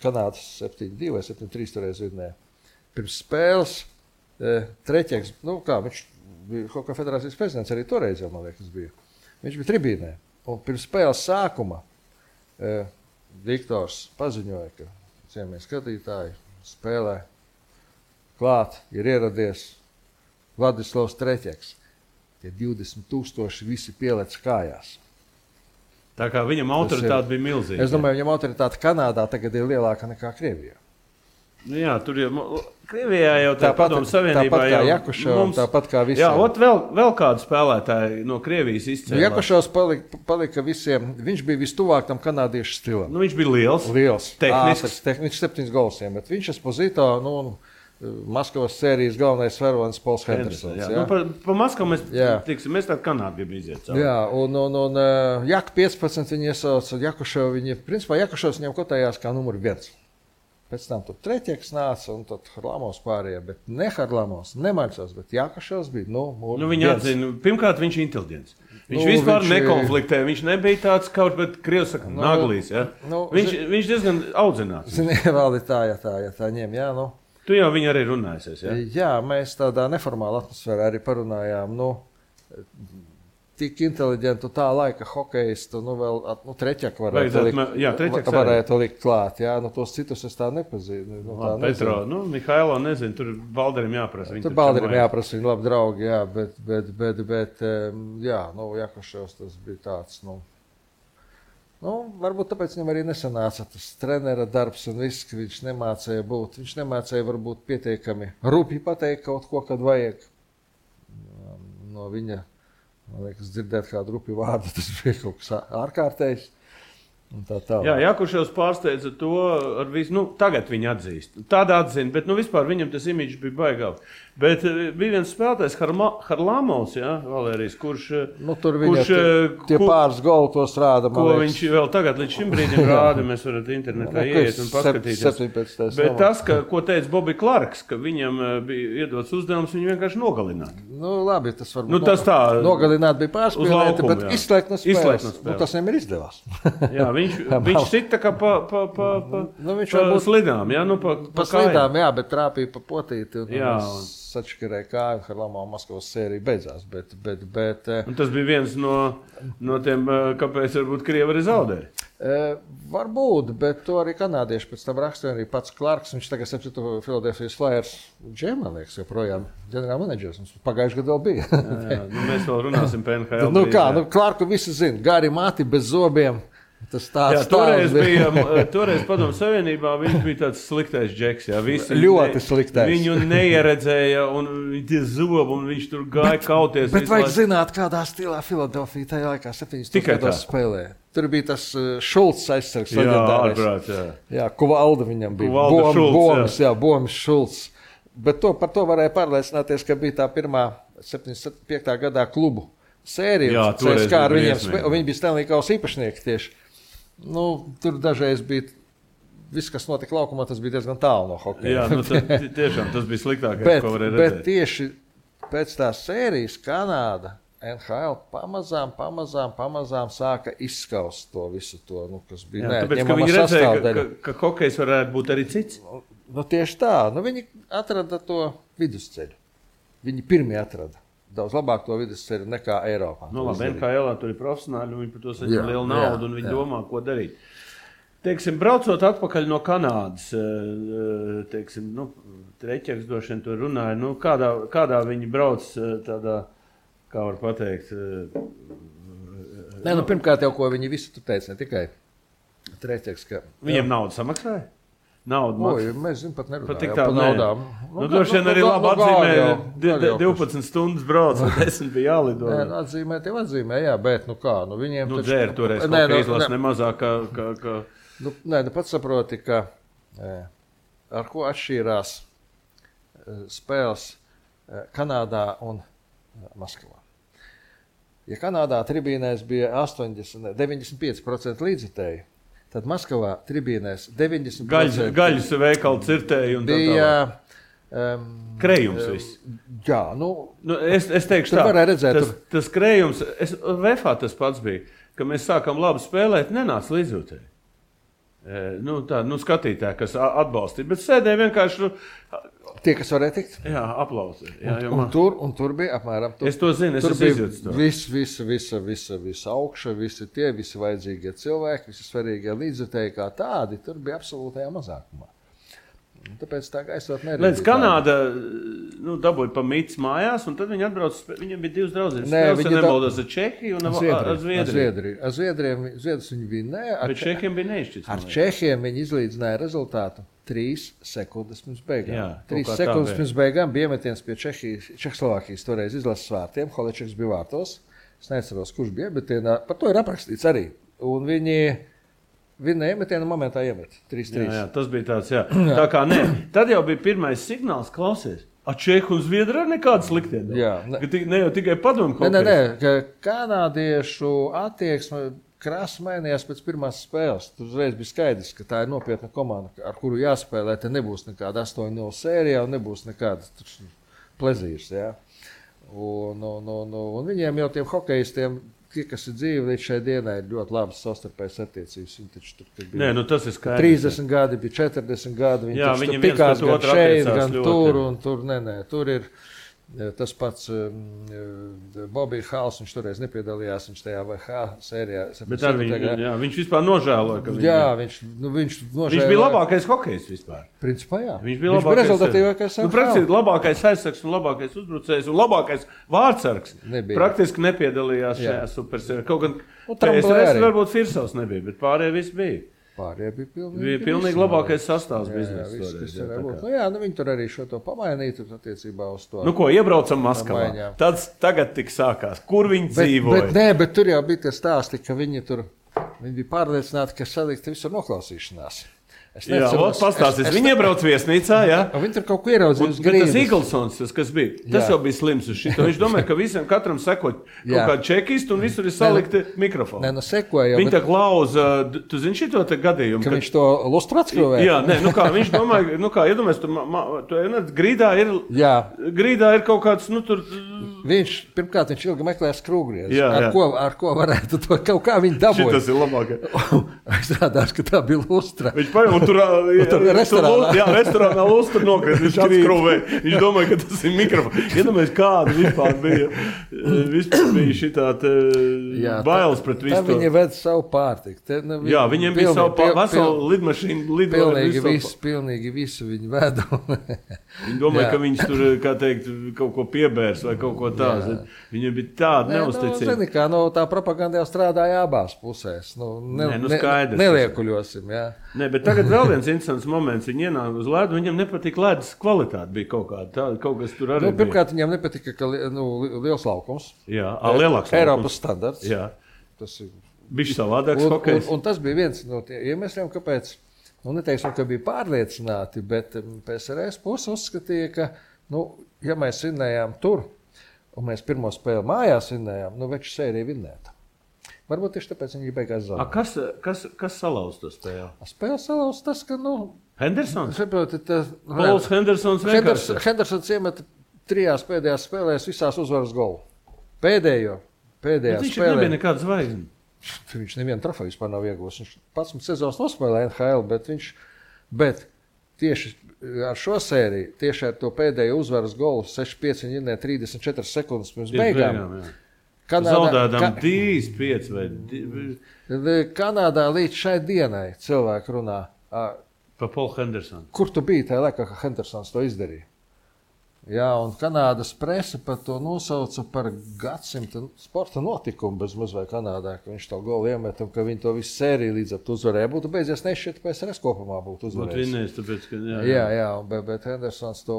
Kanādas 7-2 vai 7-3 toreiz vidnē. Pirms spēles Treķeks, viņš bija kaut kā federācijas prezidents, arī toreiz jau, man liekas, bija. Viņš bija tribīnē. Un pirms spēles sākuma Viktors paziņoja, ka cienījamie skatītāji spēlē klāt, ir ieradies Vladislavs Treķeks. Tie 20,000 visi pielec kājās. Tā kā viņam autoritāte bija milzīga. Es domāju, viņam autoritāte Kanādā tagad ir lielāka nekā Krievijā. Jā, tur jau Krievijā jau tā padomu savienībā. Tāpat kā Jakušovs, tāpat kā visiem. Jā, vēl kādu spēlētāju no Krievijas izcēlās. Jakušovs palika visiem, viņš bija vistuvāk tam kanādiešu stilam. Viņš bija liels. Tehnisks. Viņš 7 gols iemet. Viņš Esposito, Maskavas sērijas galvenais varonis Pols Hendersons. Pa Maskavu mēs tādu Kanādu gribam iziet cauri. Jā, un Jak 15 viņi iesauca, Jakušovs viņam kotējās kā numur 1. Pēc tam tur Treķeks nāca un tad Harlamovs pārējā, bet ne Harlamovs, ne Maļcovs, bet Jakušovs bija, Viņi atzina, pirmkārt viņš ir inteliģents. Viņš vispār nekonfliktē, viņš nebija tāds kaut, bet Krievs saka, naglīs, ja? Viņš diezgan audzināts. Zini, vēl ir tā, ja tā ņem, jā, Tu jau viņu arī runājusies, jā? Jā, mēs tādā neformālā atmosfērā arī parunājām, tik inteliģentu tā laika hokejistu, vēl Treķeku varētu likt klāt, jā, tos citus es tā nepazīnu. Petro, Mihailo nezinu, tur Balderim jāprasa. Tur Balderim jāprasa, viņi labi draugi, jā, bet jā, Jakušovs tas bija tāds, Varbūt tāpēc viņam arī nesanāca tas trenera darbs un viss, ka viņš nemācēja būt. Viņš nemācēja varbūt pietiekami rupji pateikt kaut ko, kad vajag. No viņa, man liekas, dzirdēt kādu rupju vārdu, tas bija kaut kas ārkārtējs. Jā, Jakuševs pārsteidza to ar visu, tagad viņi atzīst. Tāda atzina, bet vispār viņam tas imidžs bija baigāli. Bet bija viens spēlētājs, Harlamovs, Valērijas, kurš... tur viņa tie pāris goli tos rāda, man liekas. Ko viņš vēl tagad līdz šim brīdim rāda, mēs varat internetā ieiet un paskatīties. 17. Bet tas, ko teica Bobby Clarks, ka viņam bija iedots uzdevums, viņu vienkārši nogalināt. Labi, tas varbūt tas tā, nogalināt bija pārspēlēti, laukumu, bet izslēgt no spēles. Tas viņam ir izdevās. Jā, viņš sita kā pa slidām, pa slidām, jā, bet trāpīja pa potīti. Sačakarēja kāju, Harlamova Maskavas sērija beidzās. Bet, tas bija viens no tiem, kāpēc varbūt Krievi arī zaudēja. Varbūt, bet to arī kanādieši pēc tam rakstīja arī pats Clarks. Viņš tagad septīto Philadelphia Flyers džēmā, liekas, joprojām ģenerālmenedžers. Mums pagājuši gadu vēl bija. jā, mēs vēl runāsim par NHL. Clarku visi zina. Gari mati bez zobiem. Tas tāds toreiz Padomu Savienībā viņš bija tāds sliktais džeks. Jā, ļoti sliktais. Viņu neieredzēja un tie zobi, un viņš tur gāja kauties. Bet vajag zināt, kādā stilā Filadelfija tajā laikā 70. gados spēlēja. Tur bija tas Šulcs aizsargs leģendārais. Jā, Kuvalda viņam bija. Bomis Šulcs. Bet par to varēja pārliecināties, ka bija tā pirmā 75. gadā klubu sērija. Jā, toreiz viņi bija Stanley Kausa īpašnieki tieši. Tur dažreiz bija viss, kas notika laukumā, tas bija diezgan tālu no hokeja. Jā, tiešām tas bija sliktākais, ko varēja redzēt. Bet tieši pēc tās sērijas Kanāda, NHL pamazām sāka izskaust to visu to, kas bija neatņemama sastāvdaļa. Ka hokejs varētu būt arī cits? Tieši tā. Viņi atrada to vidusceļu. Viņi pirmie atrada. Daudz labāk to vidusceļu nekā Eiropā. Labi, NHL tur ir profesionāļi, un viņi par to saņem lielu naudu, un viņi domā, ko darīt. Teiksim, braucot atpakaļ no Kanādas, Treķeks droši vien tur runāja, kādā viņi brauc tādā, kā var pateikt? Pirmkārt jau, ko viņi visi tur teica, ne tikai Treķeks, ka... Viņiem naudu samaksāja? Mēs zinām, pat nerunājām par naudām. Droši vien arī labi atzīmē, 12 stundas brauc, un 10 bija jālido. Atzīmē, jā, bet viņiem taču... Dzēri toreiz kaut kā izlas nemazāk, kā... Pats saproti, ka ar ko atšķīrās spēles Kanādā un Maskavā. Ja Kanādā tribīnēs bija 95% līdzjutēji, tad Maskavā tribīnēs 90% gaļas veikalu cirtēji un bija krējums viss. Jā, es teikšu tā, tas krējums, VFA tas pats bija, ka mēs sākam labi spēlēt, nenāc līdzjūtēji. Skatītāji, kas atbalstīja, bet sēdēja vienkārši... Tie, kas varēja tikt? Jā, aplausi. Un tur bija apmēram... Es to zinu, es izjūtu to. Visa augša, visi vajadzīgie cilvēki, visi svarīgie līdzjutēji kā tādi, tur bija absolūtajā mazākumā. Tāpēc tā gaisot neredzīgi. Līdz Kanāda dabūja pa mīts mājās, un tad viņi atbrauc, viņiem bija divas draudzenes. Spēles nebaldās ar Čehiju un ar Zviedriju. Ar Zviedrijas viņi vinēja. Bet Čehiem bija neizšķirts. Ar Čehiem viņi izlīdzināja rezultātu 3 sekundes pirms beigām. Jā, 3 sekundes pirms beigām bija iemetiens pie Čehoslovākijas toreiz izlases vārtiem. Holečeks bija vārtos. Es neatceros, kurš bija, bet par to ir aprakstīts arī. Un viņi iemetienu momentā iemet 3-3. Jā, tas bija tāds, jā. Tā kā ne. Tad jau bija pirmais signāls, klausies. Čehu un Zviedri ar nekādu sliktienu. Jā. Ne jau tikai padomu hokejs. Nē, ka kanādiešu attieksme krāsa mainījās pēc pirmās spēles. Tur uzreiz bija skaidrs, ka tā ir nopietna komanda, ar kuru jāspēlē. Te nebūs nekāda 8-0 sērija un nebūs nekāda plezīrs. Jā. Un viņiem jau tiem hokejistiem, tie, kas ir dzīvi līdz šai dienai, ir ļoti labas savstarpējas attiecības. Viņi taču tur bija tas ir skaidrs. 30 gadi, bija 40 gadi. Jā, viņi tikās gan šeit, gan tur. Un tur ir Tas pats Bobija Hāls, viņš toreiz nepiedalījās, viņš tajā VH sērijā. Bet viņš vispār nožēloja, ka viņš nožēloja. Viņš bija labākais hokejs vispār. Principā jā. Viņš bija rezultatīvākais. Praktiski labākais aizsargs un labākais uzbrucējs un labākais vārdsargs. Praktiski nepiedalījās šajā supersērijā. Kaut gan PSRS varbūt Firsovs nebija, bet pārējie visi bija. Pārējie bija pilnīgi labākais sastāvs biznesa. Viņi tur arī šo to pamainītu attiecībā uz to. Ko, iebraucam Maskavā. Tāds tagad tik sākās. Kur viņi dzīvoja? Bet tur jau bija tie stāsti, ka viņi bija pārliecināti, ka salikt visur noklausīšanās. Pastāstīs. Viņi iebrauc viesnīcā, jā. Viņi tur kaut ko ieraudzīja uz grīdas. Tas Eaglesons, kas bija, tas jau bija slims uz šito. Viņš domāja, ka visiem katram sekot kaut kādu čekistu un visur ir salikti mikrofoni. Sekoja. Viņi tā klauza, tu zini šito te gadījumu? Ka viņš to lustru atskrūvēja? Jā, viņš domāja, iedomājies, grīdā ir kaut kāds, tur... Pirmkārt, viņš ilgi meklēja skrūvgriezu. Ar ko varētu to kaut kā viņi dabūja. Šitas ir labākais. Izrādās, ka tā bija lustra. Viņš paņem un tur restorānā lustra nokrīt. Viņš atskrūvēja. Viņš domāja, ka tas ir mikrofons. Iedomājies, kāda vispār bija. Vispār bija šitā bailes pret visu. Tā viņi ved savu pārtiku. Jā, viņiem bija savu veselu lidmašīnu. Pilnīgi visu viņi veda. Viņi domāja, ka viņš tur, kā teikt, kaut ko piebērs vai kaut ko tādu. Viņam bija tāda neusticība. Tā propaganda jau strādāja abās pusēs. Skaidrs. Neliekuļosim, jā. Nē, bet tagad vēl viens interesants moments. Viņi ienāk uz ledu, viņam nepatika ledus kvalitāte. Bija kaut kāda tāda, kaut kas tur arī bija. Pirmkārt, viņam nepatika, ka liels laukums. Jā, lielāks laukums. Eiropas standarts. Jā. Tas ir bišķi savādāks hokejs. Un tas bija viens no tiem iemesliem, kāpēc, neteiksim, ka bija pārliecināti, bet PSRS puse uzskatīja, ka, ja mēs vinnējām tur, un mēs pirmo spēli mājās vinnējām, veču sēriju vinnēta. Varbūt tieši tāpēc viņi beigās zaudēja. Kas salauz to spēli? Spēle salauz tas, ka, Hendersons? Pols Hendersons vienkārši. Hendersons iemeta 3 pēdējās spēlēs visās uzvaras golu. Pēdējā spēlē. Viņš nebija nekāda zvaigzne. Viņš nevienu trofeju vispār nav iegūs. Viņš 11 sezonas nospēlēja NHL, bet tieši ar šo sēriju, tieši ar to pēdējo uzvaras golu 6-5 viņi ienē 34 sekundes pirms beigām. Zaudēdām 3-5 vai 2. Kanādā līdz šai dienai cilvēki runā. Pa Polu Hendersonu. Kur tu biji tajā laikā, ka Hendersons to izdarīja? Jā, un Kanādas presa par to nosauca par gadsimta sporta notikumu bez maz vai Kanādā, ka viņš to golu iemet un ka viņi to visu sēriju līdz ar to uzvarēja. Būtu beidzies nešķiet, ka PSRS kopumā būtu uzvarējis. Būtu vinnējis, tāpēc, ka... Jā, bet Hendersons to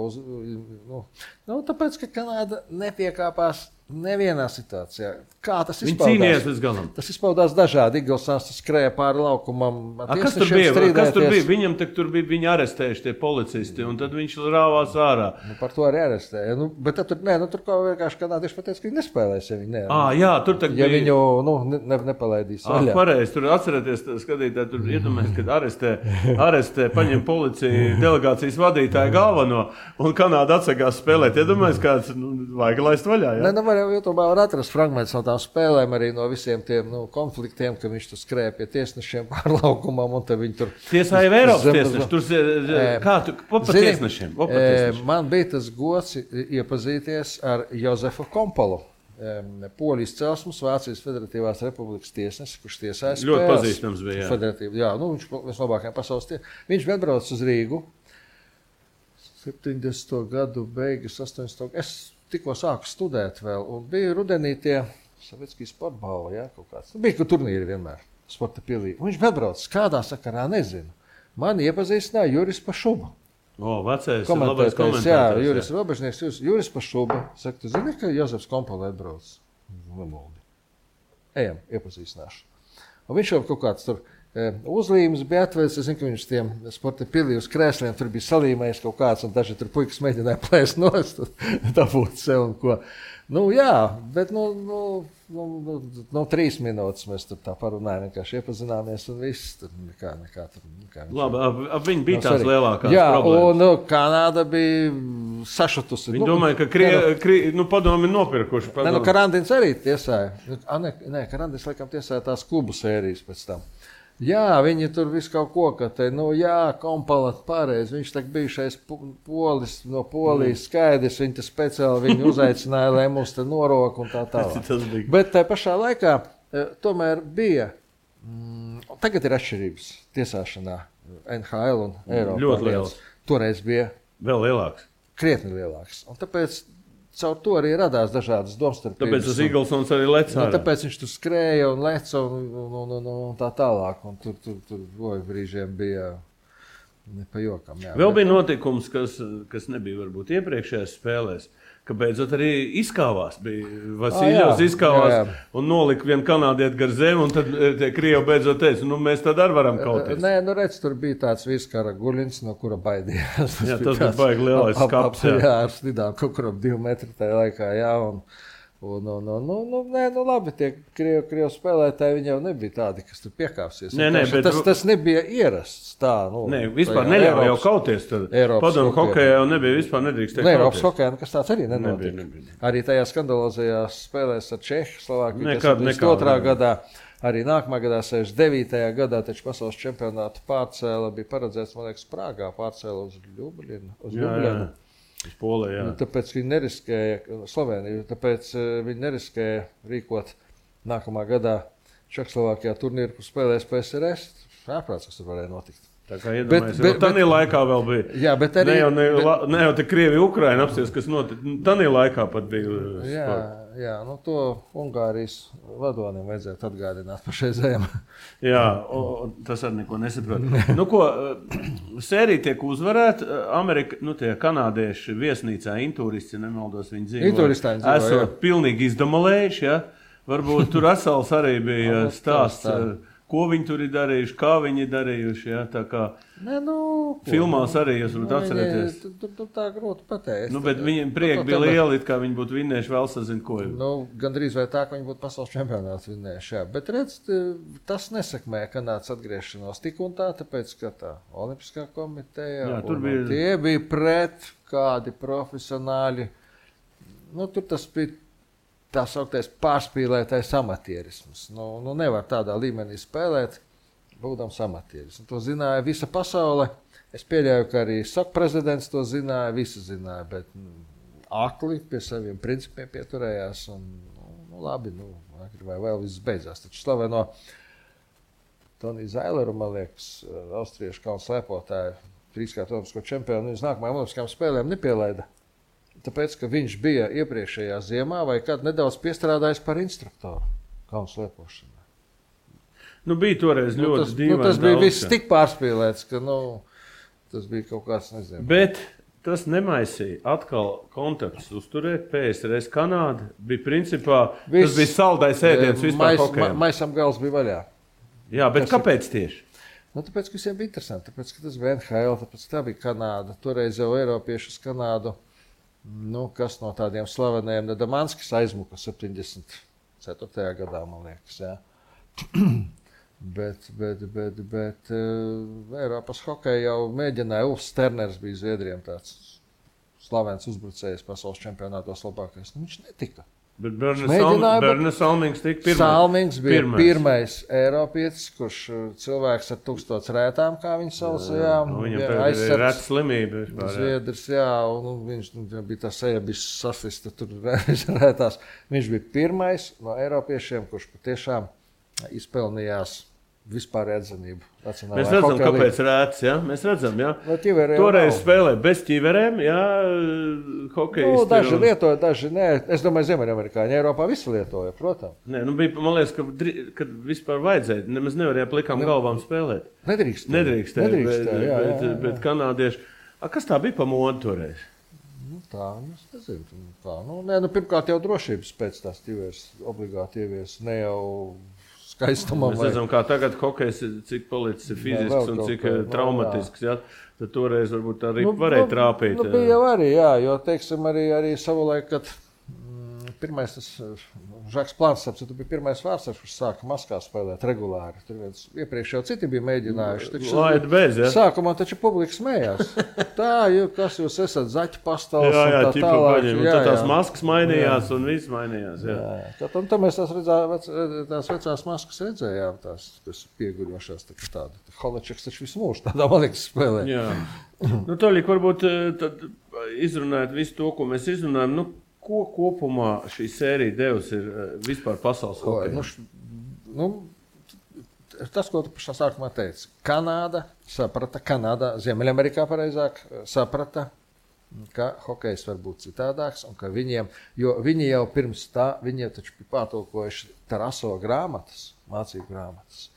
tāpēc, ka Kanāda nepiekāpās nevienā situācijā. Kā tas izpaudās? Viņi cīnījās līdz galam. Tas izpaudās dažādi. Eaglesons skrēja pāri laukumam. Kas tur bija? Viņam tur bija viņi arestējuši tie policisti, un tad viņš rāvās ārā. Par to arī arestēja. Bet tur kā vienkārši kanādieši pateica, ka viņi nespēlēs, ja viņi ne. Jā, tur tagad ja viņu nepalaidīs vaļā. Pareizi, tur atcerieties, skatītāji, tur iedomājas, kad arestē, paņem policiju delegācijas vadītāju galveno, un Kanāda atsakās spēlēt. Iedomājas, kāds vajag laist vaļā, jā? YouTube var atrast fragmentus no tām spēlēm, arī no visiem tiem konfliktiem, ka viņš tur skrēja pie tiesnešiem pārlaukumam, un tad viņi tur... Tiesāja Eiropas tiesneši, kā tu pa tiesnešiem? Man bija tas gods iepazīties ar Jozefu Kompolu, Poļu izcelsmes, Vācijas Federatīvās Republikas tiesnesis, kurš tiesāja spēles. Ļoti pazīstams bija, jā. Viņš viens labākajiem pasaules tiesneši. Viņš bija atbraucis uz Rīgu, 70. gadu beigas, 80. Es tikko sāku studēt vēl, un bija rudenī tie Savietskī sporta balva, kaut kāds. Bija turnīri vienmēr, sporta pilī. Viņš bija atbraucis, kādā sakarā nezinu. Mani iepazīstināja Juris Pašuba. Vecais, labais komentētājs. Jā, Juris Robežnieks, Juris Pašuba. Saka, tu zini, ka Jozefs Kompoli atbraucis? Nemoldi. Ejam, iepazīstināšu. Un viņš jau kaut kāds tur uzlīmes bija atvērs. Es zinu, ka viņš tiem sporta pilī uz krēsliem tur bija salīmējis kaut kāds, un daži tur puikas mēģināja plēst nost, dabūt sev un ko. Jā, bet 3 minūtes mēs tur tā parunājam, vienkārši iepazināmies un viss. Tur nekā tur. Labi, viņi bija tās lielākās problēmas. Jā, un Kanāda bija sašutusi. Viņi domāja, ka padomi nopirkuši. Karandins arī tiesāja. Karandins laikam tiesāja tās klubu sērijas pēc tam. Jā, viņi tur visu kaut ko, ka te, Kompalat pareizi. Viņš tak bijušais polis no Polijas skaidrs, viņi te speciāli viņu uzaicināja, lai mums te noroka un tā tālāk. Bet tā pašā laikā tomēr bija, tagad ir atšķirības tiesāšanā NHL un Eiropā. Ļoti liels. Toreiz bija vēl lielāks. Krietni lielāks. Un tāpēc caur to arī radās dažādas domstarpības. Tāpēc tas Eaglesons arī lec ārā. Tāpēc viņš tur skrēja un leca un tā tālāk. Un tur brīžiem bija ne pa jokam. Jā. Vēl bija notikums, kas nebija varbūt iepriekšējās spēlēs, ka beidzot arī izkāvās. Vasiljovs izkāvās un nolika vienu kanādieti gar zemi, un tad tie Krievi beidzot teica, mēs tad arī varam kauties. Nē, redz, tur bija tāds Vīskara Guļins, no kura baidījās. Tas bija baigi lielais skaps. Jā, ar slidām kaut kuram 2 metri tajā laikā, jā, labi, tie Krievu spēlētāji, viņi jau nebija tādi, kas tur piekāpsies. Tas nebija ierasts tā. Vispār neļauj jau kauties. Padomu hokejā jau nebija, vispār nedrīkst kauties. Eiropas hokejā nekas tāds arī nenotika. Arī tajā skandalozajās spēlēs ar Čehu, Slovākiju, 72. gadā, arī nākamā gadā, 69. gadā, taču pasaules čempionātu pārcēla bija paredzēts, man liekas, Prāgā pārcēla uz Ljubljanu. Polē, tāpēc viņi neriskēja Sloveniju, tāpēc viņi neriskēja rīkot nākamā gadā Čehoslovākijā turnīru, kur spēlēs PSRS. Ārprāts, kas tur varēja notikt. Tā kā iedomājies, tanī laikā vēl bija. Jā, bet arī... Ne jau te Krievi, Ukraina apsties, kas notika. Tanī laikā pat bija. Jā, to Ungārijas vadonim vajadzētu atgādināt pašreizējiem. Jā, tas arī neko nesaprot. Sērija tiek uzvarēta. Amerika, tie kanādieši viesnīcā intūristi, nemaldos, viņi dzīvo. Esot pilnīgi izdamolējuši, ja? Varbūt tur Asals arī bija stāsts. Ko viņi tur ir darījuši, kā viņi ir darījuši. Ja? Tā kā filmās arī jūs varat atcerēties. Tur tā grūti pateikt. Bet viņiem prieki bija lieli, kā viņi būtu vinnējuši vēl sazin ko. Gandrīz vai tā, ka viņi būtu pasaules čempionāts vinnējuši. Jā. Bet redz, tas nesakmē Kanādas atgriešanos tik un tā, tāpēc, ka tā Olimpiskā komiteja tie bija pret kādi profesionāļi. Tur tas bija tā sauktais pārspīlētais amatierisms. Nevar tādā līmenī spēlēt, būdams amatieris. To zināja visa pasaule. Es pieļauju, ka arī SAK prezidents to zināja, visi zināja, bet akli pie saviem principiem pieturējās. Labi, vai vēl viss beidzās. Taču slaveno Toniju Zaileru, man liekas, austriešu kalnu slēpotāju, 3-kārt olimpisko čempionu, uz nākamajām olimpiskajām spēlēm nepielaida. Tāpēc, ka viņš bija iepriekšējā ziemā vai kāds nedaudz piestrādājis par instruktoru kalnu slēpošanā. Bija toreiz ļoti dīvaini. Tas bija viss tik pārspīlēts, ka tas bija kaut kāds, nezinu. Bet tas nemaisīja atkal kontaktus uzturēt. PSRS Kanāda bija principā, tas bija saldais ēdiens vispār hokejam. Maisam gals bija vaļā. Jā, bet kāpēc tieši? Tāpēc, ka visiem bija interesanti. Tāpēc, ka tas bija NHL, tāpēc tā bija Kanāda. Toreiz jau Eiropieši uz Kanādu. Kas no tādiem slaveniem, Damanskis aizmuka 74. gadā, man liekas, jā. bet Eiropas hokeja jau mēģināja, Ulfs Sterners bija Zviedriem tāds slavens uzbrucējs pasaules čempionātos labākais. Viņš netika. Bet Berne Salmings tika pirmais. Salmings bija pirmais Eiropietis, kurš cilvēks ar 1000 rētām, kā viņi sauc, viņam tagad ir reta slimība. Zviedrs, un viņš bija tā seja, bija sasista tur rētās. Viņš bija pirmais no Eiropiešiem, kurš patiešām izpelnījās vispār atzinību. Mēs redzam, kāpēc rēts, ja? Mēs redzam, ja? Toreiz spēlē bez ķiverēm, ja, hokejisti. Daži lietoja, daži nē. Es domāju, Ziemeļamerikāņi Eiropā visi lietoja, protams. Nē, bija, man liekas, kad vispār vajadzēja, nemaz nevarēja plikām galvām spēlēt. Nedrīkstēja, bet kanādieši. Kas tā bija pa modu toreiz? Tā, es nezinu. Tā, pirmkārt jau drošības pēc tās ķiveres obligāti ievies, ne jau skaistumam. Mēs redzam, kā tagad hokejs, cik palicis ir fizisks un cik traumatisks. Ja? Tad toreiz varbūt arī varēja trāpīt. Bija jau arī, jo, teiksim, arī savulaik, kad pirmais tas Žaks Plāns, tu bija pirmais vārdsargs, kurš sāka Maskā spēlēt regulāri. Tur iepriekš jau citi bija mēģinājuši. Laid bez, ja? Sākumā taču publika smējās. Tā, kas jūs esat, zaķu pastals jā, un tā tālāk. Tad tās maskas mainījās un viss mainījās. Jā. Un tad mēs tās vecās maskas redzējām, tās pieguļošās, tāda Holačeks taču visu mūžu tādā malīgas spēlē. Jā. Toļik, varbūt tad izrunājot visu to, ko mēs izrunājam, ko kopumā šī sērija devusi ir vispār pasaules hokejā? Tas, ko tu pašā sākumā teici. Kanāda, Ziemeļamerikā pareizāk, saprata, ka hokejs var būt citādāks un ka viņi jau pirms tā, viņi taču bija pārtulkojuši Taraso grāmatas, mācību grāmatas.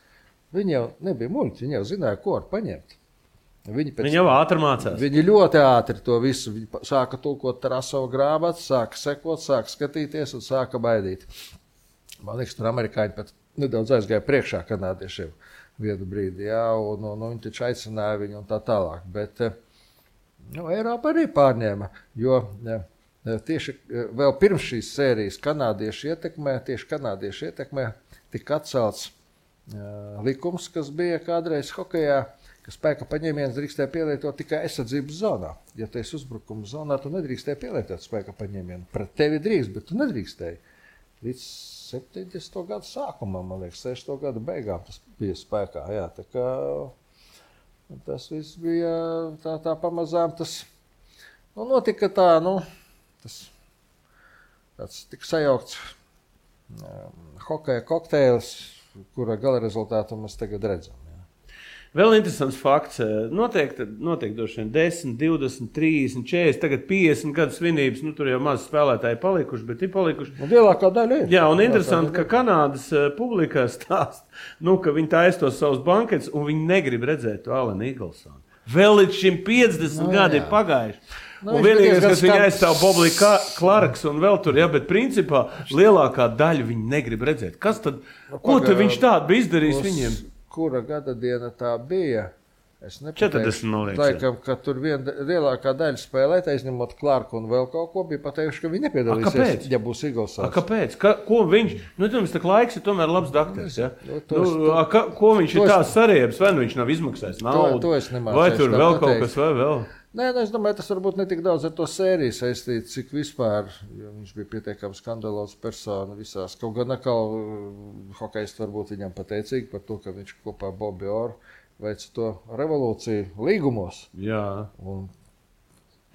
Viņi jau nebija muļķi, viņi jau zināja, ko var paņemt. Viņi jau ātri mācās. Viņi ļoti ātri to visu. Viņi sāka tulkot Tarasovu grāmatu, sāka sekot, sāka skatīties un sāka baidīt. Man liekas, tur amerikāņi pat nedaudz aizgāja priekšā kanādiešiem vienu brīdi, un viņi taču aicināja viņu un tā tālāk. Bet Eiropa arī pārņēma, jo tieši vēl pirms šīs sērijas kanādiešu ietekmē tika atcelts likums, kas bija kādreiz hokejā, ka spēka paņēmiens drīkstēja pielietot tikai aizsardzības zonā. Ja tu esi uzbrukuma zonā, tu nedrīkstēji pielietot spēka paņēmienu. Pret tevi drīkst, bet tu nedrīkstēji. Līdz 70. gadu sākumam, man liekas, 60. gadu beigām tas bija spēkā. Jā, tā kā tas viss bija tā pamazām. Tas notika tā, tāds tik sajaukts hokeja kokteils, kura gala rezultātu mēs tagad redzam. Vēl interesants fakts. Notiek droši vien 10, 20, 30, 40, tagad 50 gadu svinības. Tur jau maz spēlētāji palikuši, bet ir palikuši. Lielākā daļa ir. Jā, un interesanti, ka Kanādas publikā stāst, ka viņi taisa tos savus banketus un viņi negrib redzēt to Alenu Iglsonu. Vēl līdz šim 50 gadi ir pagājuši. Un vienīgais, kas viņa aizstāv Boblija Klarks un vēl tur, bet principā lielākā daļa viņi negrib redzēt. Kas tad, ko tad viņš tādu bija izdarījis viņiem? Kura gada diena tā bija? Es 40, man liekas. Laikam, ka tur lielākā daļa spēlētāji, izņemot Clarku un vēl kaut ko, bija pateikuši, ka viņi nepiedalīsies, ja būs Iglsons. Kāpēc? Ko viņš? Jums tā laiks ir tomēr labs dakteris, ja? Ko viņš ir tā sariebs? Vai viņš nav izmaksājis naudu? To es nemācēšu. Vai tur vēl kaut kas vai vēl? Nē, es domāju, tas varbūt ne tik daudz ar to sēriju saistīts, cik vispār, jo viņš bija pietiekami skandalos persona visās. Kaut gan atkal hokejisti varbūt viņam pateicīgi par to, ka viņš kopā Bobby Orr veica to revolūciju līgumos. Jā.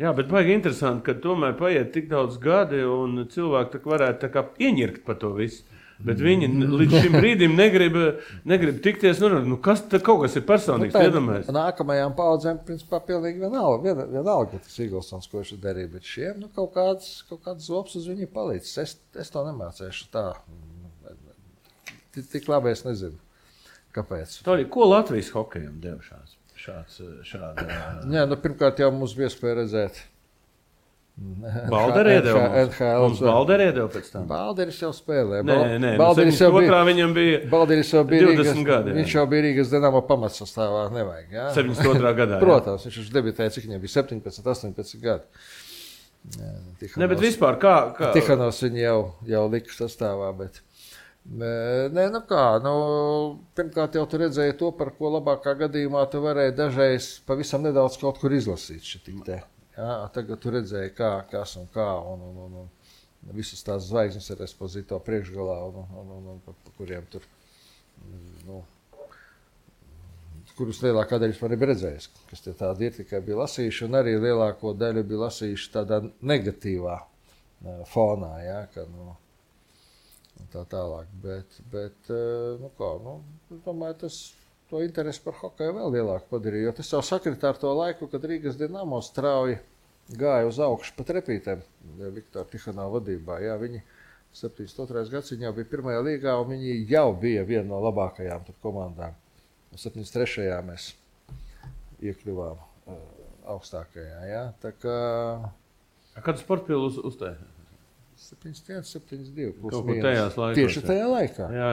Jā, bet baigi interesanti, ka tomēr paiet tik daudz gadi un cilvēki varētu tā kā ieņirkt par to visu. Bet viņi līdz šim brīdim negrib tikties. Kas kaut kas ir personīgs, iedomājies? Nākamajām paudzēm, principā, pilnīgi vienalga tas Iglsons, ko viņš darīja. Bet šiem kaut kāds zops uz viņu palīdz. Es to nemācēšu tā. Tik labi es nezinu, kāpēc. Toļi, ko Latvijas hokejam deva šāda? Jā, pirmkārt jau mums bija iespēja redzēt. Balder iedeva pēc tam. Balderis jau spēlē. Nē, Balderis jau bija 20 gadi. Viņš jau bija Rīgas Dinamo pamatsastāvā, nevajag. Jā? 72. gadā. Protams, viņš debitēja, cik viņam bija 17, 18 gadi. Ne, bet vispār kā? Tihanovs viņu jau lika sastāvā, bet... Nē, pirmkārt jau tu redzēji to, par ko labākā gadījumā tu varēji dažreiz pavisam nedaudz kaut kur izlasīt šitik te. Jā, tagad tu redzēji, kas un kā, un visas tās zvaigznes ar Esposito priekšgalā, un pa kuriem tur, kurus lielākā daļa man ir redzējis, kas tie tādi ir, tikai bija lasījuši, un arī lielāko daļu bija lasījuši tādā negatīvā fonā, jā, ka, tā tālāk, bet es domāju, to interesi par hokeju vēl lielāku padarīja, jo tas jau sakritā ar to laiku, kad Rīgas Dinamo strauji gāja uz augšu pa trepītēm Viktora Tihanova vadībā. Jā, viņi 72. gads viņi jau bija pirmajā līgā, un viņi jau bija viena no labākajām komandām. 73. mēs iekļuvām augstākajā. Jā. Tā kā... Kādu sportpilu uztaisīja? 7-1, 7-2. Kaut kur tajās laikos. Tieši tajā laikā. Jā,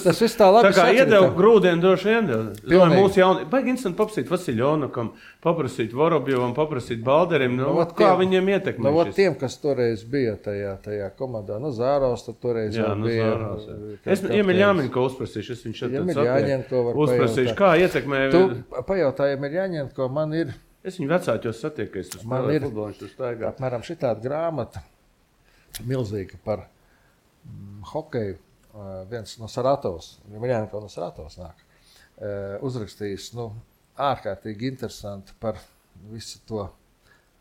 Tas viss tā labi tā kā iedeva grūdienu droši vien. Domāju, mūsu jauni, baigi interesanti paprasīt Vasiljonukam, paprasīt Vorobjovam, paprasīt Balderim, kā viņiem ietekmē šis. Tiem, kas toreiz bija tajā komandā, Zāros, tad toreiz jā, bija. Es Iemeļāņenko uzprasīšu, es viņš šeit Iemeļāņenko var uzprasīšu, kā ietekmē. Tu pajautāji Iemeļāņenko, man ir. Es viņu vecāķos satieku, es uz spēlēju futbolu, viņš tur staigā. Apmēram šitāda grāmata, milzīga par hokeju, viens no Saratovas, Iemeļāņenko no Saratovas nāk, uzrakstījis, ārkārtīgi interesanti par visu to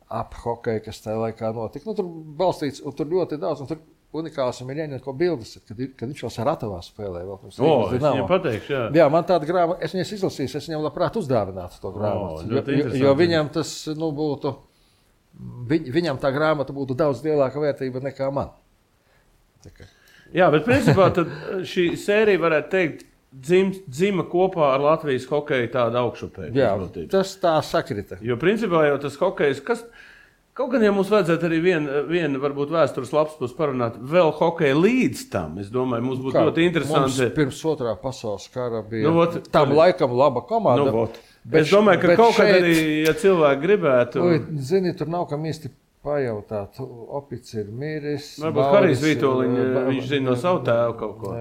ap hokeju, kas tajā laikā notika. Tur balstīts, un tur ļoti daudz, un tur unikāls Iemeļāņenko bildes, kad viņš vēl Saratovā spēlēja. Es viņam pateikšu, jā. Jā, man tāda grāmata, es viņas izlasīju, es viņam labprāt uzdāvinātu to grāmatu. Jo viņam tas, būtu, viņam tā grāmata būtu daudz lielāka vērtība nekā man. Jā, bet principā tad šī sērija varētu teikt, dzima kopā ar Latvijas hokeju tādu augšupēju. Jā, tas tā sakrita. Jo principā jau tas hokejs, kaut gan jau mums vajadzētu arī vienu varbūt vēstures lapspus parunāt vēl hokeju līdz tam. Es domāju, mums būtu ļoti interesanti. Mums pirms otrā pasaules kara bija tam laikam laba komanda. Es domāju, ka kaut kad arī, ja cilvēki gribētu. Zini, tur nav kam īsti pajautāt. Opics ir miris. Varbūt Harijs Vītoliņa, viņš zina no savu tēvu kaut ko.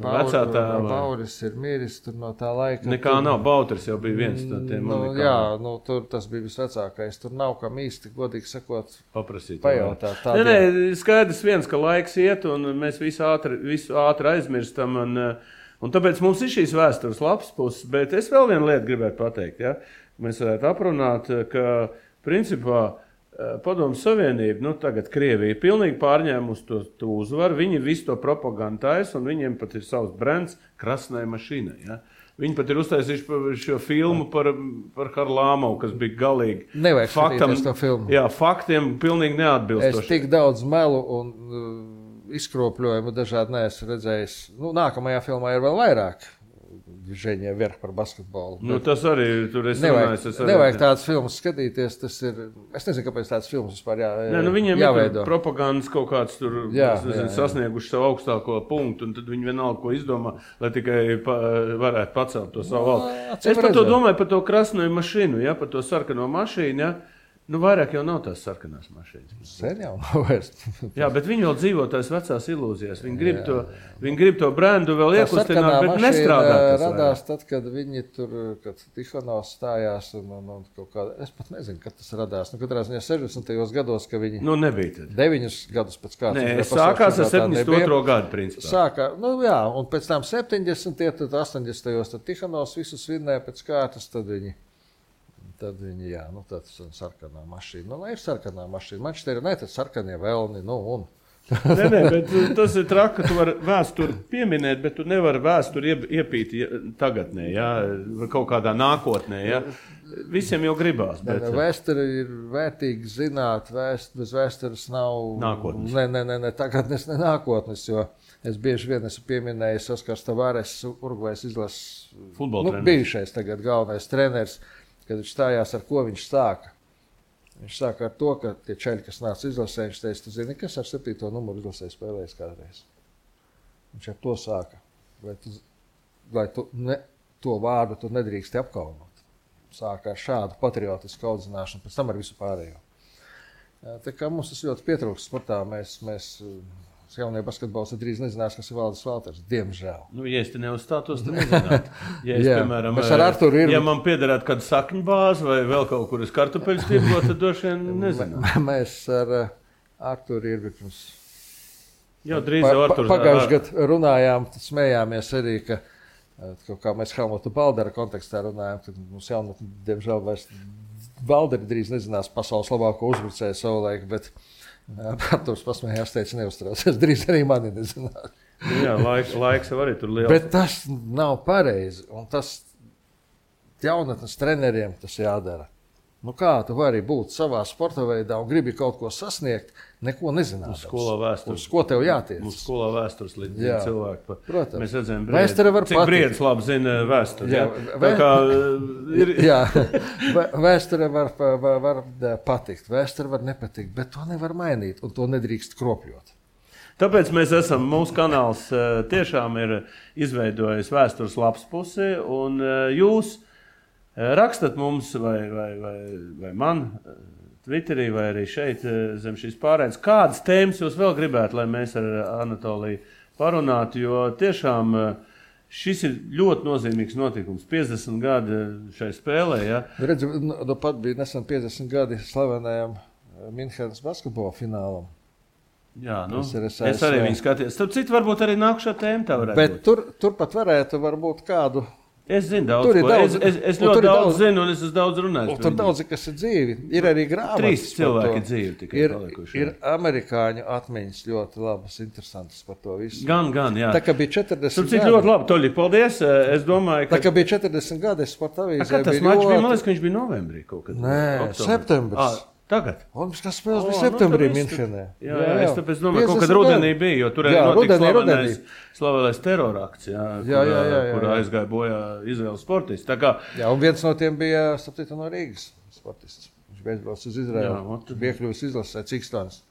Vecā tēva. Bauris ir miris tur no tā laika. Nekā nav, Bauters jau bija viens no tiem. Jā, tur tas bija visvecākais. Tur nav kam īsti, godīgi sakot, paprasīt. Pajautāt. Nē, skaidrs viens, ka laiks iet un mēs visu ātri aizmirstam un tāpēc mums ir šīs vēstures labs puses, bet es vēl vienu lietu gribētu pateikt, ja? Mēs varētu aprunāt, ka principā Padomju Savienība, tagad Krievija pilnīgi pārņēmusi to uzvaru, viņi visu to propagandu taisa un viņiem pat ir savs brands Krasnai mašīnai, ja? Viņi pat ir uztaisījuši šo filmu par Harlamovu, kas bija galīgi. Nevajag skatīties to filmu. Jā, faktiem pilnīgi neatbilstoši. Es tik daudz melu un izkropļojumu dažādi neesmu redzējis. Nākamajā filmā ir vēl vairāk. Ženija vērk par basketbolu. Tas arī tur es runāju. Nevajag tādas filmas skatīties, tas ir, es nezinu, kāpēc tādas filmas vispār viņiem jāveido. Ir propagandas kaut kāds tur, sasnieguši savu augstāko punktu, un tad viņi vienalga, ko izdomā, lai tikai varētu pacelt to savu valsts. Es par to domāju, par to Krasnoju mašīnu, par to sarkano mašīnu, vairāk jau nav tās sarkanās mašīnas. Sen jau nav vairs. Jā, bet viņi vēl dzīvo tās vecās ilūzijas. Viņi grib to brendu vēl iekustināt, bet nestrādā. Radās tad, kad viņi tur, kad Tihonovs stājās un kaut kā, es pat nezinu, kad tas radās. Katrā ziņā 60. gados, ka viņi nebija tad. 9 gadus pēc kārtas. Nē, sākās ar 72. gadu, principā. Un pēc tam 70. tad 80. tad Tihonovs visus vinnēja pēc kārtas, tad viņi, tas ir sarkanā mašīna. Ir sarkanā mašīna. Man šķiet, tas sarkanie velni, Nē, bet tas ir traki, ka tu vari vēsturi pieminēt, bet tu nevari vēsturi iepīt tagadnē, kaut kādā nākotnē, Visiem jau gribās. Vēsture ir vērtīgi zināt, bez vēstures nav nākotnes. Ne tagadnes, ne nākotnes, jo es bieži vien esmu pieminējis Oskars Tavares, Urugvajas izlases bijušais tagad galvenais treneris, kad viņš stājās, ar ko viņš sāka. Viņš sāka ar to, ka tie čeļi, kas nāca izlasē, viņš teica, tu zini, kas ar 7. numuru izlasē spēlējis kādreiz. Viņš ar to sāka. Vai to vārdu tu nedrīksti apkaunot. Sāka ar šādu patriotisku audzināšanu, pēc tam ar visu pārējo. Tā kā mums tas ļoti pietrūkst sportā, mēs jaunie basketbols drīz nezinās, kas ir Valdis Valters. Diemžēl. Ja es te neuzstātos, tad nezinātu. Ja es, piemēram, ja man piederētu kādu sakņu bāzi vai vēl kaut kur uz kartupeļus tirgot, tad droši vien nezinātu. Mēs ar Arturu Irbi pirms pagājušajā gadā runājām, smējāmies arī, ka kaut kā mēs Helmuta Baldera kontekstā runājām, kad mums jaunatni, diemžēl, vairs Balderi drīz nezinās pasaules labāko uzbrucēju savulaik, bet Arturs pasmējās, teica, neuztraucies, drīz arī mani nezināt. Jā, laiks jau arī tur liels. Bet tas nav pareizi, un tas jaunatnes treneriem tas jādara. Nu kā tu vari būt savā sporta veidā un gribi kaut ko sasniegt, neko nezināt. Uz skolā vēstures. Uz ko tev jātiec? Uz skolā vēstures līdz cilvēku. Protams. Mēs redzam, cik Briedis labi zina vēsturi. Jā, jā. Vēsture var patikt, vēsture var nepatikt, bet to nevar mainīt un to nedrīkst kropļot. Tāpēc mēs mūsu kanāls tiešām ir izveidojis vēstures lapspusi, un jūs rakstat mums vai man Twitterī vai arī šeit zem šīs pārēdes, kādas tēmas jūs vēl gribētu, lai mēs ar Anatoliju parunātu, jo tiešām šis ir ļoti nozīmīgs notikums. 50 gadi šai spēlē. Ja? Redzi, pat bija nesen 50 gadi slavenajam Minhenes basketbola finālam. Jā, es arī viņu skatījos. Starp citu, varbūt arī nākušā tēma tā varētu būt. Bet tur varētu varbūt kādu. Es zinu daudz, es ļoti daudz zinu, un es esmu daudz runājis. Tur daudzi, kas ir dzīvi. Ir arī grāmatas. 3 cilvēki dzīvi tikai palikuši. Ir amerikāņu atmiņas ļoti labas, interesantas par to visu. Gan, jā. Tā kā bija 40 gadi. Tur ļoti labi, Toļi, paldies. Es domāju, ka... Tā kā bija 40 gadi, es sporta avīzē biju ļoti... Tas mačs bija, man liekas, ka viņš bija novembrī kaut kad. Nē, septembris. Tagad? Olimpiskās spēles bija septembrī Minhenē. Jā, es tāpēc domāju, kaut kad rudenī bija, jo tur notika slavenais terorakts, kur aizgāja bojā Izraēlas sportisti. Jā, un viens no tiem bija, starp no Rīgas sportists. Viņš beidz uz Izraēlu, bija iekļuvis izlasē Cikstons.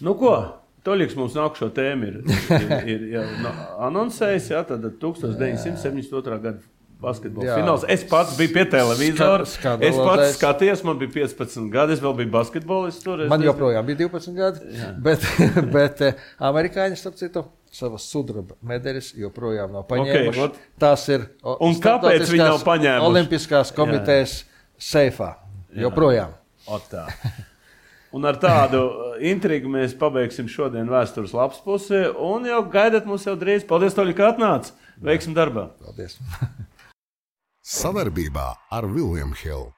Nu ko, Toļiks mums nākušo tēmu ir anonsējis, tad 1972. gada basketbola fināls. Es pats biju pie televizora. Es pats skatījos, man bija 15 gadi, es vēl biju basketbolists. Man joprojām bija 12 gadi, bet amerikāņi, starp citu, savas sudraba medaļas joprojām nav paņēmuši. Tās ir un kāpēc viņi nav paņēmuši? Olimpiskās komitejas seifā. Joprojām. Un ar tādu intrigu mēs pabeigsim šodien vēstures lapspusi un jau gaidat mūs jau drīz. Paldies, Toļi, ka atnāc. Veiksim darbā. Paldies. Savarbībā ar William Hill.